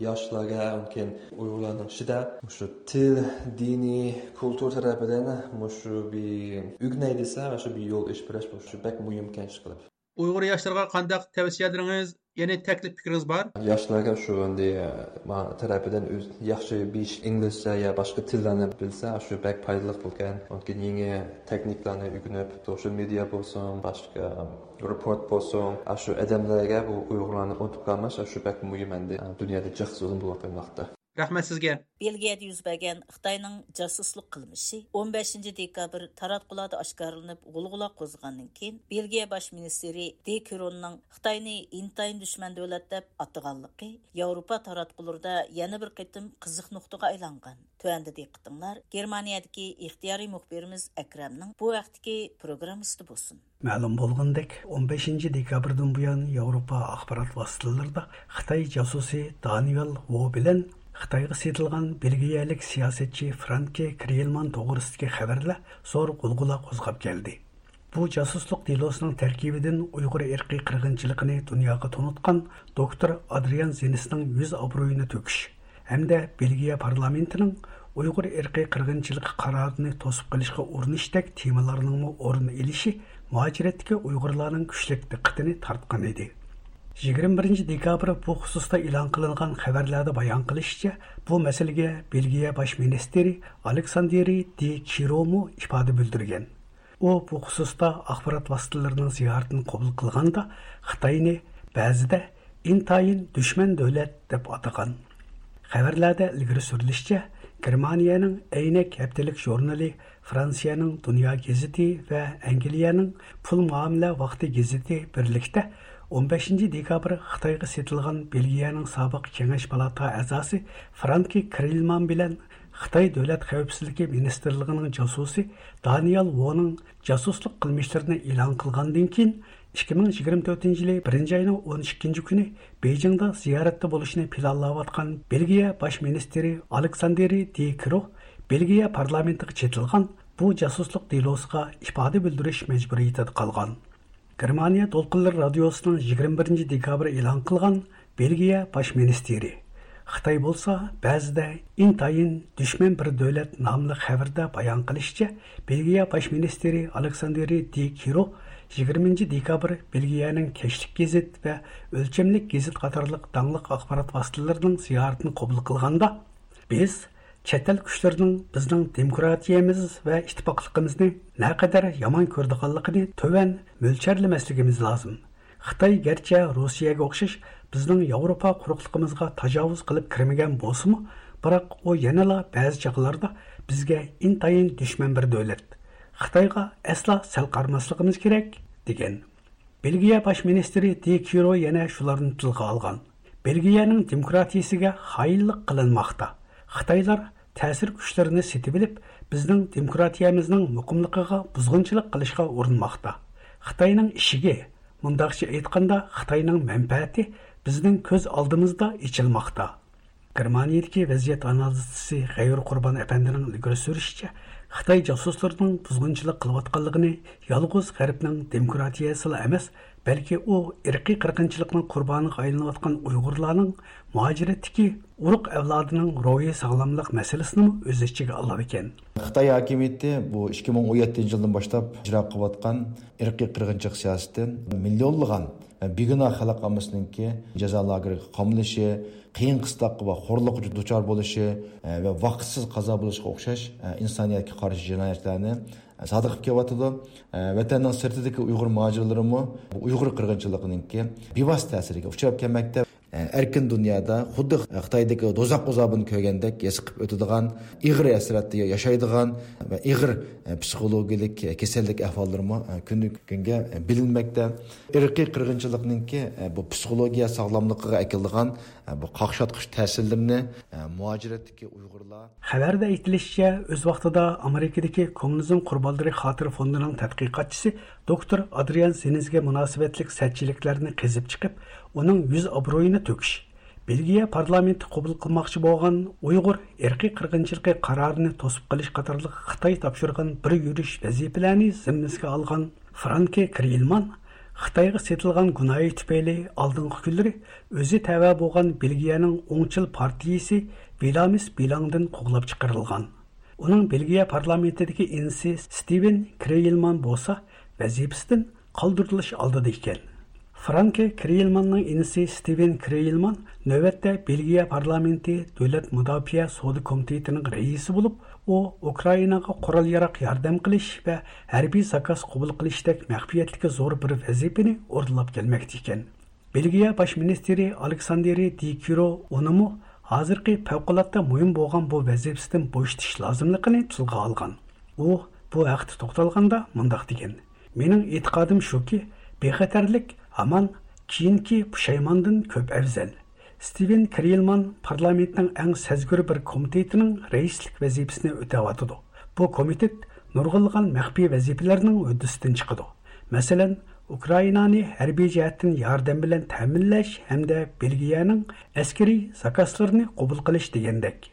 ياشلارغا، ئۇنىڭ كېيىن ئۇيغۇرلارنىڭ ئىچىدە مۇشۇ تىل، دىنىي، كۇلتۇر تەرەپىدىن مۇشۇ بىر ئۆگىنەي دېسە، شۇ بىر يول ئېچىپ بېرىش، شۇ بەك مۇھىمكەن ئىشقىلىپ. ئۇيغۇر ياشلىرىغا قانداق تەۋسىيەلىرىڭىز، يەنى تەكلىپ پىكرىڭىز بار؟ ياشلارغا شۇ ئەمدى، ما تەرەپىدىن ئۆز ياخشى بىر ئىش، ئىنگلىزچە يا باشقا تىللارنى بىلسە، شۇ بەك پايدىلىق بولغان. ئۇنىڭ كېيىن يېڭى تېخنىكىلارنى ئۆگىنىپ، سوشال مېدىيا بولسۇن، باشقا رېپورت بولسۇن، شۇ ئادەملەرگە بۇ ئۇيغۇرلارنى ئۇنتۇپ قالماس، شۇ بەك مۇھىم ئەمدى، دۇنيادا جىق زۇلۇم بولۇۋاتقان ۋاقىتتا. رەھمەت سىزگە. بېلگىيەدە يۈز بەرگەن خىتاينىڭ جاسۇسلۇق قىلمىشى ئون بەشىنچى دېكابىر تاراتقۇلاردا ئاشكارىلىنىپ، غۇلغۇلا قوزغىغاندىن كېيىن، بېلگىيە باش مىنىستىرى دې كروننىڭ خىتاينى ئىنتايىن دۈشمەن دۆلەت دەپ ئاتىغانلىقى ياۋروپا تاراتقۇلىرىدا يەنە بىر قېتىم قىزىق نۇقتىغا ئايلانغان. تۆۋەندە دىققىتىڭلار گېرمانىيەدىكى ئىختىيارىي مۇخبىرىمىز ئەكرەمنىڭ بۇ ھەقتىكى پروگراممىسىدا بولسۇن. مەلۇم بولغىنىدەك، ئون بەشىنچى دېكابىردىن بۇيان ياۋروپا ئاخبارات ۋاسىتىلىرىدا خىتاي جاسۇسى دانىيال ۋو بىلەن خىتايغا سېتىلغان بېلگىيەلىك سىياسەتچى فرانكى كرېيلمان توغرىسىدىكى خەۋەرلەر زور غۇلغۇلا قوزغاپ كەلدى. بۇ جاسۇسلۇق دېلوسىنىڭ تەركىبىدىن ئۇيغۇر ئىرقىي قىرغىنچىلىقىنى دۇنياغا تونۇتقان دوكتور ئادرىيان زېنسنىڭ يۈز ئابرۇيىنى تۆكۈش، ھەمدە بېلگىيە پارلامېنتىنىڭ ئۇيغۇر ئىرقىي قىرغىنچىلىقى قارارىنى توسۇپ قېلىشقا ئۇرۇنۇشتەك تېمىلارنىڭمۇ ئورۇن ئېلىشى مۇھاجىرەتتىكى ئۇيغۇرلارنىڭ كۈچلۈك دىققىتىنى تارتقان ئىدى. يىگىرمە بىرىنچى دېكابىر بۇ خۇسۇستا ئېلان قىلىنغان خەۋەرلەردە بايان قىلىشىچە، بۇ مەسىلىگە بېلگىيە باش مىنىستىرى ئالېكساندېرى دى كىرومۇ ئىپادە بىلدۈرگەن. ئۇ بۇ خۇسۇستا ئاخبارات ۋاسىتىلىرىنىڭ زىيارىتىنى قوبۇل قىلغاندا، خىتاينى بەزىدە ئىنتايىن دۈشمەن دۆلەت دەپ ئاتىغان. خەۋەرلەردە ئىلگىرى سۈرۈلۈشىچە، گېرمانىيەنىڭ ئەينەك ھەپتىلىك ژۇرنىلى، فرانسىيەنىڭ دۇنيا گېزىتى ۋە ئەنگلىيەنىڭ پۇل مۇئامىلە ۋاقتى گېزىتى بىرلىكتە ئون بەشىنچى دېكابىر خىتايغا سېتىلغان بېلگىيەنىڭ سابىق كېڭەش پالاتا ئەزاسى فرانكى كرېيلمان بىلەن خىتاي دۆلەت خەۋپسىزلىكى مىنىستىرلىقىنىڭ جاسۇسى دانىيال ۋونىڭ جاسۇسلۇق قىلمىشلىرىنى ئېلان قىلغاندىن كېيىن، ئىككى مىڭ يىگىرمە تۆتىنچى يىلى بىرىنچى ئاينىڭ ئون ئىككىنچى كۈنى بېيجىڭدا زىيارەتتە بولۇشنى پىلانلاۋاتقان بېلگىيە باش مىنىستىرى ئالېكساندېرى دى كرو بېلگىيە پارلامېنتىغا چېتىلغان بۇ جاسۇسلۇق دېلوسىغا ئىپادە بىلدۈرۈش مەجبۇرىيىتىدە قالغان. گېرمانىيە دولقۇنلىرى رادىيوسىنىڭ يىگىرمە بىرىنچى دېكابىر ئېلان قىلغان بېلگىيە باش مىنىستىرى. خىتاي بولسا بەزىدە ئىنتايىن دۈشمەن بىر دۆلەت ناملىق خەۋىرىدە بايان قىلىشىچە، بېلگىيە باش مىنىستىرى ئالېكساندېرى دى كىرو يىگىرمىنچى دېكابىر بېلگىيەنىڭ كەچلىك گېزىت ۋە ئۆلچەملىك گېزىت قاتارلىق داڭلىق ئاخبارات ۋاسىتىلىرىنىڭ زىيارىتىنى قوبۇل قىلغاندا، بىز چەت ئەل كۈچلىرىنىڭ بىزنىڭ دېموكراتىيەمىز ۋە ئىتتىپاقلىقىمىزنى نەقەدەر يامان كۆرىدىغانلىقىنى تۆۋەن مۆلچەرلىمەسلىكىمىز لازىم. خىتاي گەرچە روسىيەگە ئوخشاش بىزنىڭ ياۋروپا قۇرۇقلۇقىمىزغا تاجاۋۇز قىلىپ كىرمىگەن بولسىمۇ، بىراق ئۇ يەنىلا بەزى چاغلاردا بىزگە ئىنتايىن دۈشمەن بىر دۆلەت. خىتايغا ئەسلا سەل قارىماسلىقىمىز كېرەك، دېگەن. بېلگىيە باش مىنىستىرى دى كىرو يەنە شۇلارنى تىلغا ئالغان. بېلگىيەنىڭ دېموكراتىيىسىگە خائىنلىق قىلىنماقتا. خىتايلار تەسىر كۈچلىرىنى سېتىۋېلىپ، بىزنىڭ دېموكراتىيەمىزنىڭ مۇقىملىقىغا بۇزغۇنچىلىق قىلىشقا ئۇرۇنماقتا. خىتاينىڭ ئىشىكى، مۇنداقچە ئېيتقاندا، خىتاينىڭ مەنپەئەتى بىزنىڭ كۆز ئالدىمىزدا ئېچىلماقتا. گېرمانىيەدىكى ۋەزىيەت ئانالىزچىسى غەيۇر قۇربان ئەپەندىنىڭ ئىلگىرى سۈرۈشىچە، خىتاي جاسۇسلىرىنىڭ بۇزغۇنچىلىق قىلىۋاتقانلىقىنى يالغۇز غەربنىڭ دېموكراتىيەسىلا ئەمەس، بەلكى ئۇ ئىرقىي قىرغىنچىلىقنىڭ قۇربانىغا ئايلىنىۋاتقان ئۇيغۇرلارنىڭ مۇھاجىرەتتىكى ئۇرۇق ئەۋلادىنىڭ روھىي ساغلاملىق مەسىلىسىنىمۇ ئۆز ئىچىگە ئالىدىكەن. خىتاي ھاكىمىيىتى بۇ ئىككى مىڭ ئون يەتتىنچى يىلدىن باشلاپ ئىجرا قىلىۋاتقان ئىرقىي قىرغىنچىلىق سىياسىتى مىليونلىغان بىگۇناھ خەلق ئاممىسىنىڭكى جازا لاگېرىغا قامىلىشى، قىيىن قىستاققا ۋە خورلۇققا دۇچار بولۇشى ۋە ۋاقىتسىز قازا بولۇشىغا ئوخشاش ئىنسانىيەتكە قارشى جىنايەتلەرنى سادىر قىلىپ كېلىۋاتىدۇ. ۋەتەننىڭ سىرتىدىكى ئۇيغۇر مۇھاجىرلىرىمۇ ئۇيغۇر قىرغىنچىلىقىنىڭكى بىۋاسىتە تەسىرىگە ئۇچراپ كەلمەكتە. ئەركىن دۇنيادا خۇددى خىتايدىكى دوزاخ ئازابىنى كۆرگەندەك ھېس قىلىپ ئۆتىدىغان، ئېغىر ھەسرەتتە ياشايدىغان ۋە ئېغىر پسىخولوگىيەلىك كېسەللىك ئەھۋاللىرىمۇ كۈندىن كۈنگە بىلىنمەكتە. ئىرقىي قىرغىنچىلىقنىڭكى بۇ پسىخولوگىيە ساغلاملىقىغا ئەكېلىدىغان بۇ قاقشاتقۇچ تەسىرلىرىنى مۇھاجىرەتتىكى ئۇيغۇرلار. خەۋەردە ئېيتىلىشىچە، ئۆز ۋاقتىدا ئامېرىكىدىكى كوممۇنىزم قۇربانلىرى خاتىرە فوندىنىڭ تەتقىقاتچىسى دوكتور ئادرىيان سېنىزگە مۇناسىۋەتلىك سەتچىلىكلەرنى قېزىپ چىقىپ، ئۇنىڭ يۈز ئابرۇيىنى تۆكۈش، بېلگىيە پارلامېنتى قوبۇل قىلماقچى بولغان ئۇيغۇر ئىرقىي قىرغىنچىلىقى قارارىنى توسۇپ قېلىش قاتارلىق خىتاي تاپشۇرغان بىر يۈرۈش ۋەزىپىلەرنى زىممىسىگە ئالغان فرانكى كرېيلمان خىتايغا سېتىلغان گۇناھى تۈپەيلى ئالدىنقى كۈنلىرى ئۆزى تەۋە بولغان بېلگىيەنىڭ ئوڭچىل پارتىيىسى ۋىلامىس بىلاڭدىن قوغلاپ چىقىرىلغان. ئۇنىڭ بېلگىيە پارلامېنتىدىكى ئىنىسى ستىۋېن كرېيلمان بولسا ۋەزىپىسىدىن قالدۇرۇلۇش ئالدىدا ئىكەن. فرانكى كرېيلماننىڭ ئىنىسى ستىۋېن كرېيلمان نۆۋەتتە بېلگىيە پارلامېنتى دۆلەت مۇداپىئە سودا كومىتېتىنىڭ رەئىسى بولۇپ، ئۇ ئۇكرائىناغا قورال-ياراغ ياردەم قىلىش ۋە ھەربىي زاكاز قوبۇل قىلىشتەك مەخپىيەتتىكى زور بىر ۋەزىپىنى ئورۇنلاپ كەلمەكتە ئىكەن. بېلگىيە باش مىنىستىرى ئالېكساندېرى دى كىرو ئۇنىمۇ ھازىرقى پەۋقۇلئاددە مۇھىم بولغان بۇ ۋەزىپىسىدىن بوشىتىش لازىملىقىنى تىلغا ئالغان. ئۇ بۇ ھەقتە توختالغاندا مۇنداق دېگەن: «مېنىڭ ئېتىقادىم شۇكى، بىخەتەرلىك ھامان كېيىنكى پۇشايماندىن كۆپ ئەۋزەل.» ستىۋېن كرېيلمان پارلامېنتنىڭ ئەڭ سەزگۈر بىر كومىتېتىنىڭ رەئىسلىك ۋەزىپىسىنى ئۆتەۋاتىدۇ. بۇ كومىتېت نۇرغۇنلىغان مەخپىي ۋەزىپىلەرنىڭ ھۆددىسىدىن چىقىدۇ. مەسىلەن، ئۇكرائىنانى ھەربىي جەھەتتىن ياردەم بىلەن تەمىنلەش ھەمدە بېلگىيەنىڭ ئەسكىرىي زاكازلىرىنى قوبۇل قىلىش دېگەندەك.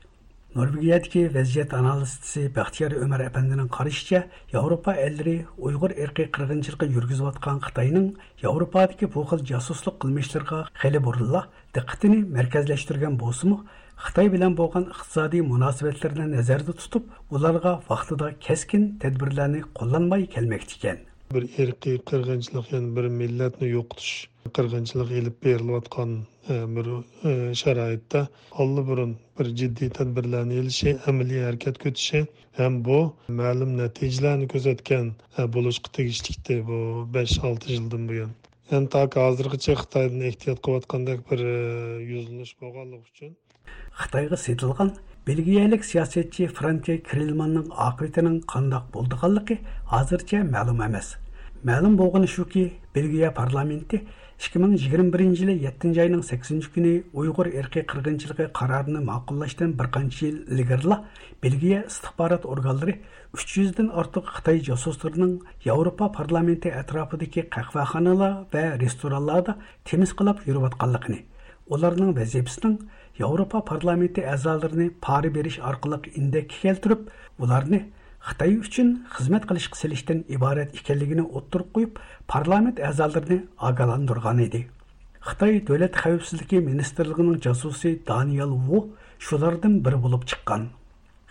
نورۋېگىيەدىكى ۋەزىيەت ئانالىزچىسى بەختىيار ئۆمەر ئەپەندىنىڭ قارىشىچە، ياۋروپا ئەللىرى ئۇيغۇر ئىرقىي قىرغىنچىلىقى يۈرگۈزۈۋاتقان خىتاينىڭ ياۋروپادىكى بۇ خىل جاسۇسلۇق قىلمىشلىرىغا خېلى بۇرۇنلا دىققىتىنى مەركەزلەشتۈرگەن بولسىمۇ، خىتاي بىلەن بولغان ئىقتىسادىي مۇناسىۋەتلىرىنى نەزەردە تۇتۇپ، ئۇلارغا ۋاقتىدا كەسكىن تەدبىرلەرنى قوللانماي كەلمەكتىكەن. بىر ئىرقىي قىرغىنچىلىق، يەنى بىر مىللەتنى يوقىتىش قىرغىنچىلىقى ئېلىپ بېرىلىۋاتقان، ئە، بىر، ئە، شارائىتتا ئاللىبۇرۇن بىر جىددىي تەدبىرلەرنى ئېلىشى، ئەمەلىي ھەرىكەت كۆتۈشى ھەم بۇ مەلۇم نەتىجىلەرنى كۆرسەتكەن، ئە، بولۇشقا تېگىشلىكتى بۇ بەش-ئالتە يىلدىن بۇيان. يەنى تاكى ھازىرغىچە خىتايدىن ئېھتىيات قىلىۋاتقاندەك بىر، ئە، يۈزلىنىش بولغانلىقى ئۈچۈن، خىتايغا سېتىلغان بېلگىيەلىك سىياسەتچى فرانكى كرېلماننىڭ ئاقىۋىتىنىڭ قانداق بولىدىغانلىقى ھازىرچە مەلۇم ئەمەس. مەلۇم بولغىنى شۇكى، بېلگىيە پارلامېنتى ئىككى مىڭ يىگىرمە بىرىنچى يىلى يەتتىنچى ئاينىڭ سەككىزىنچى كۈنى ئۇيغۇر ئىرقىي قىرغىنچىلىقى قارارىنى ماقۇللاشتىن بىر قانچە يىل ئىلگىرىلا بېلگىيە ئىستىخبارات ئورگانلىرى ئۈچ يۈزدىن ئارتۇق خىتاي جاسۇسلىرىنىڭ ياۋروپا پارلامېنتى ئەتراپىدىكى قەھۋەخانىلار ۋە رېستورانلاردا تېمىسقىلاپ يۈرۈۋاتقانلىقىنى، ئۇلارنىڭ ۋەزىپىسىنىڭ ياۋروپا پارلامېنتى ئەزالىرىنى پارا بېرىش ئارقىلىق ئىندەككە كەلتۈرۈپ، ئۇلارنى خىتاي ئۈچۈن خىزمەت قىلىشقا سېلىشتىن ئىبارەت ئىكەنلىكىنى ئوتتۇرىغا قويۇپ، پارلامېنت ئەزالىرىنى ئاگاھلاندۇرغان ئىدى. خىتاي دۆلەت خەۋپسىزلىكى مىنىستىرلىقىنىڭ جاسۇسى دانىيال ۋۇ شۇلاردىن بىرى بولۇپ چىققان.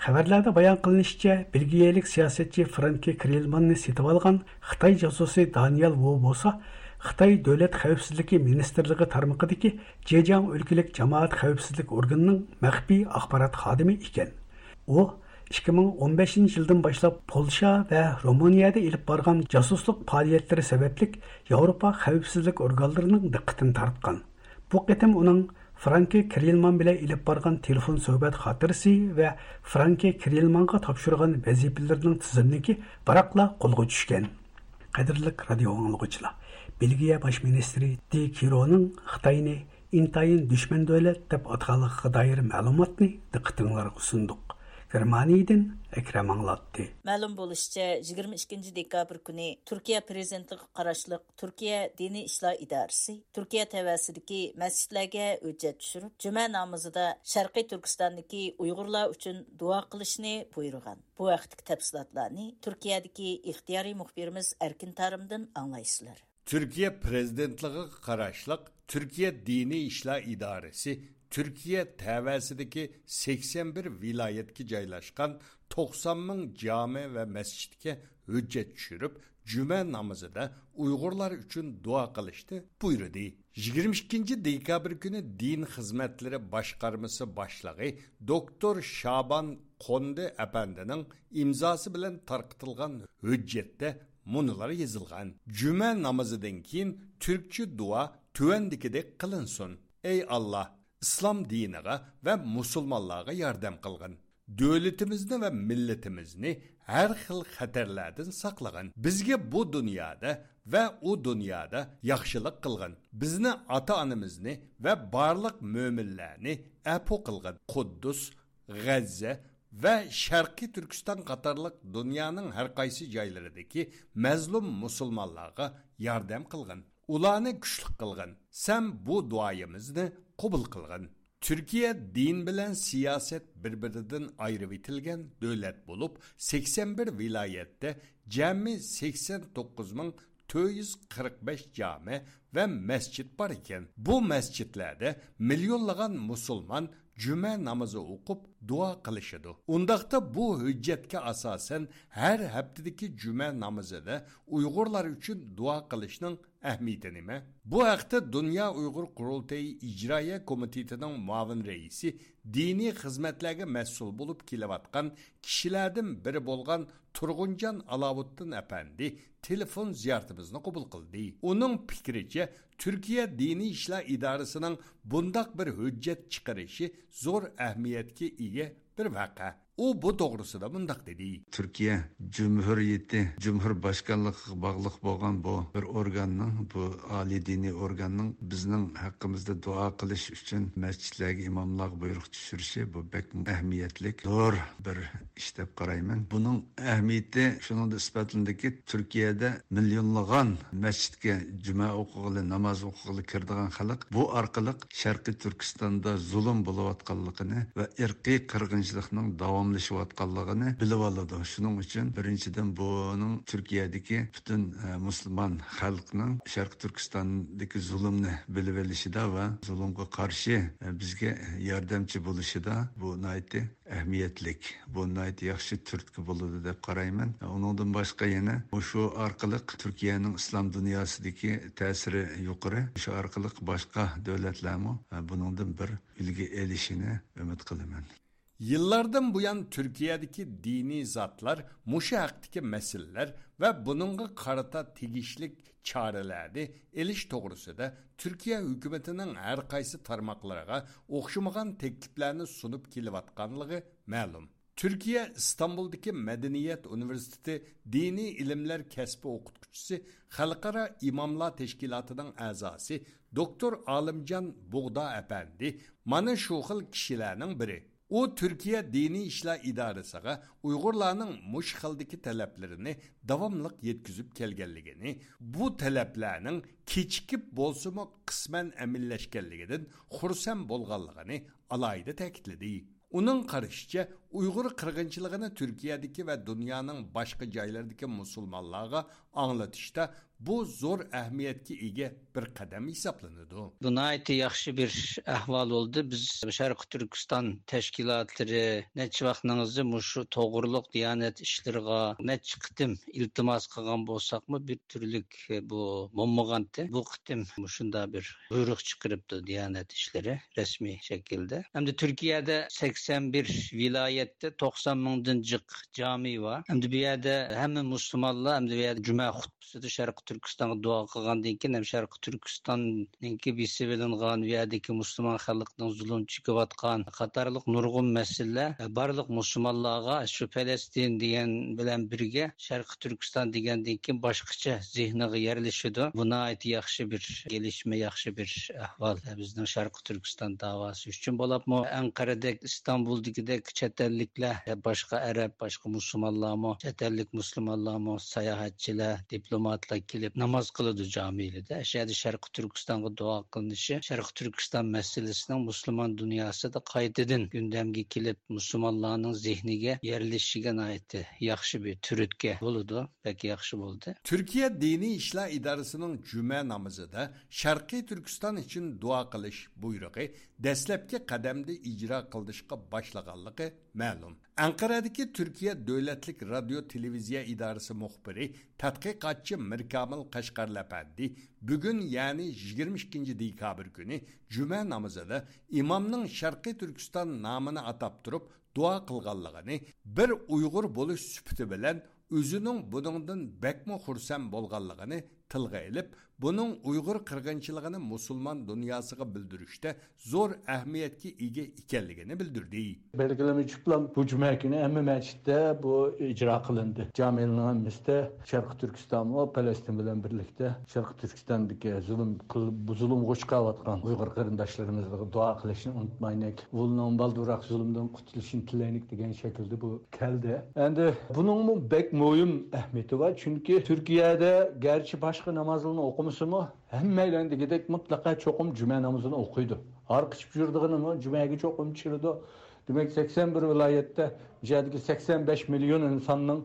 خەۋەرلەردە بايان قىلىنىشىچە، بېلگىيەلىك سىياسەتچى فرانكى كرېلماننى سېتىۋالغان خىتاي جاسۇسى دانىيال ۋۇ بولسا، خىتاي دۆلەت خەۋپسىزلىكى مىنىستىرلىقى تارمىقىدىكى جېجياڭ ئۆلكىلىك جامائەت خەۋپسىزلىك ئورگىنىنىڭ مەخپىي ئاخبارات خادىمى ئىكەن. ئۇ ئىككى مىڭ ئون بەشىنچى يىلدىن باشلاپ پولشا ۋە رومانىيەدە ئېلىپ بارغان جاسۇسلۇق پائالىيەتلىرى سەۋەبلىك ياۋروپا خەۋپسىزلىك ئورگانلىرىنىڭ دىققىتىنى تارتقان. بۇ قېتىم ئۇنىڭ فرانكى كرېلمان بىلەن ئېلىپ بارغان تېلېفون سۆھبەت خاتىرىسى ۋە فرانكى كرېلمانغا تاپشۇرغان ۋەزىپىلىرىنىڭ تىزىملىكى بىراقلا قولغا چۈشكەن. قەدىرلىك رادىيو ئاڭلىغۇچىلار، بېلگىيە باش مىنىستىرى دى كىرونىڭ خىتاينى ئىنتايىن دۈشمەن دۆلەت دەپ ئاتىغانلىقىغا دائىر مەلۇماتنى دىققىتىڭلارغا سۇندۇق. گېرمانىيىدىن ئەكرەم ئاڭلاتتى. مەلۇم بولۇشىچە، يىگىرمە ئىككىنچى دېكابىر كۈنى تۈركىيە پىرېزىدېنتلىقىغا قاراشلىق تۈركىيە دىنىي ئىشلار ئىدارىسى تۈركىيە تەۋەسىدىكى مەسچىتلەرگە ھۆججەت چۈشۈرۈپ، جۈمە نامىزىدا شەرقىي تۈركىستاندىكى ئۇيغۇرلار ئۈچۈن دۇئا قىلىشنى بۇيرۇغان. بۇ ھەقتىكى تەپسىلاتلارنى تۈركىيەدىكى ئىختىيارىي مۇخبىرىمىز ئەركىن تارىمدىن ئاڭلايسىلەر. تۈركىيە پىرېزىدېنتلىقىغا قاراشلىق تۈركىيە دىنىي ئىشلار ئىدارىسى تۈركىيە تەۋەسىدىكى سەكسەن بىر ۋىلايەتكە جايلاشقان توقسان مىڭ جامە ۋە مەسچىتكە ھۆججەت چۈشۈرۈپ، جۈمە نامىزىدا ئۇيغۇرلار ئۈچۈن دۇئا قىلىشنى بۇيرۇدى. يىگىرمە ئىككىنچى دېكابىر كۈنى دىن خىزمەتلىرى باشقارمىسى باشلىقى دوكتور شابان قوندى ئەپەندىنىڭ ئىمزاسى بىلەن تارقىتىلغان ھۆججەتتە مۇنۇلار يېزىلغان: جۈمە نامىزىدىن كېيىن تۈركچە دۇئا تۆۋەندىكىدەك قىلىنسۇن: ئەي ئاللا، ئىسلام دىنىغا ۋە مۇسۇلمانلارغا ياردەم قىلغىن. دۆلىتىمىزنى ۋە مىللىتىمىزنى ھەر خىل خەتەرلەردىن ساقلىغىن. بىزگە بۇ دۇنيادا ۋە ئۇ دۇنيادا ياخشىلىق قىلغىن. بىزنى، ئاتا-ئانىمىزنى ۋە بارلىق مۆمىنلەرنى ئەپۇ قىلغىن. قۇددۇس، غەززە ۋە شەرقىي تۈركىستان قاتارلىق دۇنيانىڭ ھەر قايسى جايلىرىدىكى مەزلۇم مۇسۇلمانلارغا ياردەم قىلغىن. ئۇلارنى كۈچلۈك قىلغىن. سەن بۇ دۇئايىمىزنى قوبۇل قىلغىن. تۈركىيە دىن بىلەن سىياسەت بىر-بىرىدىن ئايرىۋېتىلگەن دۆلەت بولۇپ، سەكسەن بىر ۋىلايەتتە جەمئىي سەكسەن توققۇز مىڭ تۆت يۈز قىرىق بەش جامە ۋە مەسچىت بار ئىكەن. بۇ مەسچىتلەردە مىليونلىغان مۇسۇلمان جۈمە نامىزى ئوقۇپ دۇئا قىلىشىدۇ. ئۇنداقتا بۇ ھۆججەتكە ئاساسەن ھەر ھەپتىدىكى جۈمە نامىزىدا ئۇيغۇرلار ئۈچۈن دۇئا قىلىشنىڭ ئەھمىيىتى نېمە؟ بۇ ھەقتە دۇنيا ئۇيغۇر قۇرۇلتىيى ئىجرائىيە كومىتېتىنىڭ مۇئاۋىن رەئىسى، دىنىي خىزمەتلەرگە مەسئۇل بولۇپ كېلىۋاتقان كىشىلەردىن بىرى بولغان تۇرغۇنجان ئالاۋۇتتىن ئەپەندى تېلېفون زىيارىتىمىزنى قوبۇل قىلدى. ئۇنىڭ پىكرىچە، تۈركىيە دىنىي ئىشلار ئىدارىسىنىڭ بۇنداق بىر ھۆججەت چىقىرىشى زور ئەھمىيەتكە ئىگە بىر ۋەقە. ئۇ بۇ توغرىسىدا مۇنداق دېدى. تۈركىيە جۇمھۇرىيىتى، جۇمھۇر باشقانلىقىغا باغلىق بولغان بۇ بىر ئورگاننىڭ، بۇ ئالىي دىنىي ئورگاننىڭ بىزنىڭ ھەققىمىزدە دۇئا قىلىش ئۈچۈن مەسچىتلەرگە ئىماملارغا بۇيرۇق چۈشۈرۈشى، بۇ بەك ئەھمىيەتلىك، زور بىر ئىش دەپ قارايمەن. بۇنىڭ ئەھمىيىتى شۇنىڭدا ئىسپاتلىنىدۇكى، تۈركىيەدە مىليونلىغان مەسچىتكە جۈمە ئوقۇغىلى، ناماز ئوقۇغىلى كىرىدىغان خەلق بۇ ئارقىلىق شەرقىي تۈركىستاندا زۇلۇم بولۇۋاتقانلىقىنى ۋە ئىرقىي قىرغىنچىلىقنىڭ داۋاملىشىۋاتقانلىقىنى بىلىۋالىدۇ. شۇنىڭ ئۈچۈن بىرىنچىدىن بۇنىڭ تۈركىيەدىكى پۈتۈن، ئە، مۇسۇلمان خەلقنىڭ شەرقىي تۈركىستاندىكى زۇلۇمنى بىلىۋېلىشىدا ۋە زۇلۇمغا قارشى، ئە، بىزگە ياردەمچى بولۇشىدا بۇ ناھايىتى ئەھمىيەتلىك، بۇ ناھايىتى ياخشى تۈرتكە بولىدۇ دەپ قارايمەن. ئۇنىڭدىن باشقا يەنە مۇشۇ ئارقىلىق تۈركىيەنىڭ ئىسلام دۇنياسىدىكى تەسىرى يۇقىرى. شۇ ئارقىلىق باشقا دۆلەتلەرمۇ بۇنىڭدىن بىر ئۈلگە ئېلىشىنى ئۈمىد قىلىمەن. يىللاردىن بۇيان تۈركىيەدىكى دىنىي زاتلار مۇشۇ ھەقتىكى مەسىلىلەر ۋە بۇنىڭغا قارىتا تېگىشلىك چارىلەرنى ئېلىش توغرىسىدا تۈركىيە ھۆكۈمىتىنىڭ ھەر قايسى تارماقلىرىغا ئوخشىمىغان تەكلىپلەرنى سۇنۇپ كېلىۋاتقانلىقى مەلۇم. تۈركىيە ئىستانبۇلدىكى مەدەنىيەت ئۇنىۋېرسىتېتى دىنىي ئىلىملەر كەسپى ئوقۇتقۇچىسى، خەلقئارا ئىماملار تەشكىلاتىنىڭ ئەزاسى دوكتور ئالىمجان بۇغدا ئەپەندى مانا شۇ خىل كىشىلەرنىڭ بىرى. ئۇ تۈركىيە دىنىي ئىشلار ئىدارىسىغا ئۇيغۇرلارنىڭ مۇشۇ خىلدىكى تەلەپلىرىنى داۋاملىق يەتكۈزۈپ كەلگەنلىكىنى، بۇ تەلەپلەرنىڭ كېچىكىپ بولسىمۇ قىسمەن ئەمەلىيلەشكەنلىكىدىن خۇرسەن بولغانلىقىنى ئالاھىدە تەكىتلىدى. ئۇنىڭ قارىشىچە، ئۇيغۇر قىرغىنچىلىقىنى تۈركىيەدىكى ۋە دۇنيانىڭ باشقا جايلىرىدىكى مۇسۇلمانلارغا ئاڭلىتىشتا بۇ زور ئەھمىيەتكە ئىگە بىر قەدەم ھېسابلىنىدۇ. بۇ ناھايىتى ياخشى بىر ئەھۋال بولدى. بىز شەرقىي تۈركىستان تەشكىلاتلىرى نەچچە ۋاقىتنىڭ ئىزى مۇشۇ توغرۇلۇق دىيانەت ئىشلىرىغا نەچچە قېتىم ئىلتىماس قىلغان بولساقمۇ، بىر تۈرلۈك بۇ بولمىغانتى. بۇ قېتىم مۇشۇنداق بىر بۇيرۇق چىقىرىپتۇ دىيانەت ئىشلىرى رەسمىي شەكىلدە. ئەمدى تۈركىيەدە سەكسەن بىر ۋىلايەتتە توقسان مىڭدىن جىق جامى بار. ئەمدى بۇ يەردە ھەممە مۇسۇلمانلار ئەمدى بۇ يەردە جۈمە خۇتبىسىدا شەرقىي تۈركىستانغا دۇئا قىلغاندىن كېيىن، ھەم شەرقىي تۈركىستاننىڭكى بېسىۋېلىنغان، بۇ يەردىكى مۇسۇلمان خەلقنىڭ زۇلۇم چېكىۋاتقان قاتارلىق نۇرغۇن مەسىلىلەر بارلىق مۇسۇلمانلارغا شۇ پەلەستىن دېگەن بىلەن بىرگە شەرقىي تۈركىستان دېگەندىن كېيىن باشقىچە زېھنىغا يەرلىشىدۇ. بۇ ناھايىتى ياخشى بىر كېلىشمە، ياخشى بىر ئەھۋال بىزنىڭ شەرقىي تۈركىستان داۋاسى ئۈچۈن. بولۇپمۇ ئەنقەرەدەك، ئىستانبۇلدىكىدەك چەت ئەللىكلەر، باشقا ئەرەب، باشقا مۇسۇلمانلارمۇ، چەت ئەللىك مۇسۇلمانلارمۇ، ساياھەتچىلەر، دىپلوماتلار كېلىپ ناماز قىلىدۇ جامىلىرىدە. شۇ يەردە شەرقىي تۈركىستانغا دۇئا قىلىنىشى شەرقىي تۈركىستان مەسىلىسىنىڭ مۇسۇلمان دۇنياسىدا قايتىدىن گۈندەمگە كېلىپ، مۇسۇلمانلارنىڭ زېھنىگە يەرلىشىشىگە ناھايىتى ياخشى بىر تۈرتكە بولىدۇ. بەك ياخشى بولدى. تۈركىيە دىنىي ئىشلار ئىدارىسىنىڭ جۈمە نامىزىدا شەرقىي تۈركىستان ئۈچۈن دۇئا قىلىش بۇيرۇقى دەسلەپكى قەدەمدە ئىجرا قىلىنىشقا باشلىغانلىقى مەلۇم. ئەنقەرەدىكى تۈركىيە دۆلەتلىك رادىيو تېلېۋىزىيە ئىدارىسى مۇخبىرى، تەتقىقاتچى مىركامىل قەشقەرلى ئەپەندى بۈگۈن، يەنى يىگىرمە ئىككىنچى دېكابىر كۈنى جۈمە نامىزىدا ئىمامنىڭ شەرقىي تۈركىستان نامىنى ئاتاپ تۇرۇپ دۇئا قىلغانلىقىنى، بىر ئۇيغۇر بولۇش سۈپىتى بىلەن ئۆزىنىڭ بۇنىڭدىن بەكمۇ خۇرسەن بولغانلىقىنى تىلغا ئېلىپ، بۇنىڭ ئۇيغۇر قىرغىنچىلىقىنى مۇسۇلمان دۇنياسىغا بىلدۈرۈشتە زور ئەھمىيەتكە ئىگە ئىكەنلىكىنى بىلدۈردى. بەلگىلىمە چۈشۈپلا بۇ جۈمە كۈنى ھەممە مەسچىتتە بۇ ئىجرا قىلىندى. جامىلارنىڭ ھەممىسىدە شەرقىي تۈركىستانمۇ پەلەستىن بىلەن بىرلىكتە شەرقىي تۈركىستاندىكى زۇلۇم قىل-، بۇ زۇلۇمغا ئۇچراۋاتقان ئۇيغۇر قېرىنداشلىرىمىزغا دۇئا قىلىشنى ئۇنتۇمايلى. ئۇلنىڭ بالدۇرراق زۇلۇمدىن قۇتۇلۇشىنى تىلەيلىك دېگەن شەكىلدە بۇ كەلدى. ئەمدى بۇنىڭمۇ بەك مۇھىم ئەھمىيىتى بار، چۈنكى تۈركىيەدە گەرچە باشقا نامازلارنى ئوقۇمىسىمۇ، ھەممەيلەن دېگۈدەك مۇتلەقا چوقۇم جۈمە نامىزىنى ئوقۇيدۇ. ھارقىشىپ يۈرىدىغىنىمۇ جۈمەگە چوقۇم چىرىدۇ. دېمەك، سەكسەن بىر ۋىلايەتتە، بۇ يەردىكى سەكسەن بەش مىليون ئىنساننىڭ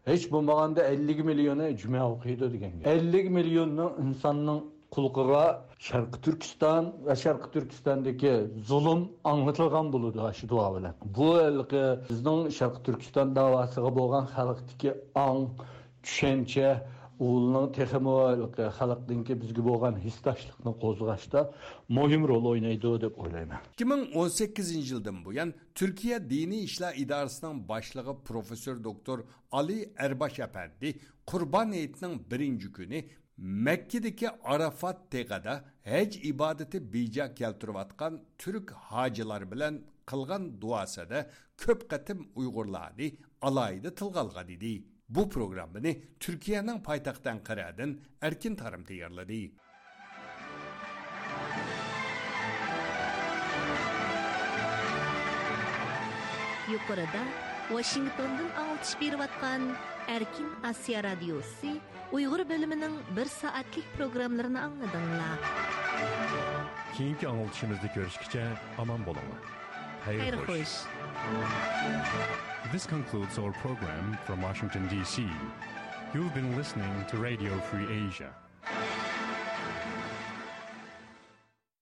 ھېچ بولمىغاندا ئەللىك مىليونى جۈمە ئوقۇيدۇ دېگەن گەپ. ئەللىك مىليوننىڭ ئىنساننىڭ خەلقىگە شەرقىي تۈركىستان ۋە شەرقىي تۈركىستاندىكى زۇلۇم ئاڭلىتىلغان بولىدۇ ئاشۇ دۇئا بىلەن. بۇ ھېلىقى بىزنىڭ شەرقىي تۈركىستان داۋاسىغا بولغان خەلقتىكى ئاڭ، چۈشەنچە، ئۇلارنىڭ تېخىمۇ ھېلىقى خەلقنىڭكى بىزگە بولغان ھېسداشلىقنى قوزغاشتا مۇھىم رول ئوينايدۇ دەپ ئويلايمەن. ئىككى مىڭ ئون سەككىزىنچى يىلدىن بۇيان تۈركىيە دىنىي ئىشلار ئىدارىسىنىڭ باشلىقى پروفېسسور دوكتور ئالى ئەرباش ئەپەندى قۇربان ھېيتنىڭ بىرىنچى كۈنى مەككىدىكى ئارافات تېغىدا ھەج ئىبادىتى بېجا كەلتۈرۈۋاتقان تۈرك ھاجىلار بىلەن قىلغان دۇئاسىدا كۆپ قېتىم ئۇيغۇرلارنى ئالاھىدە تىلغا ئالغان ئىدى. بۇ پروگراممىنى تۈركىيەنىڭ پايتەختى ئەنقەرەدىن ئەركىن تارىم تەييارلىدى. يۇقىرىدا ۋاشىنگتوندىن ئاڭلىتىش بېرىۋاتقان ئەركىن ئاسىيا رادىيوسى ئۇيغۇر بۆلۈمىنىڭ بىر سائەتلىك پروگراممىلىرىنى ئاڭلىدىڭلار. كېيىنكى ئاڭلىتىشىمىزدا كۆرۈشكىچە ئامان بولۇڭلار. خەير خوش. This concludes our program from Washington, D C. You've been listening to Radio Free Asia.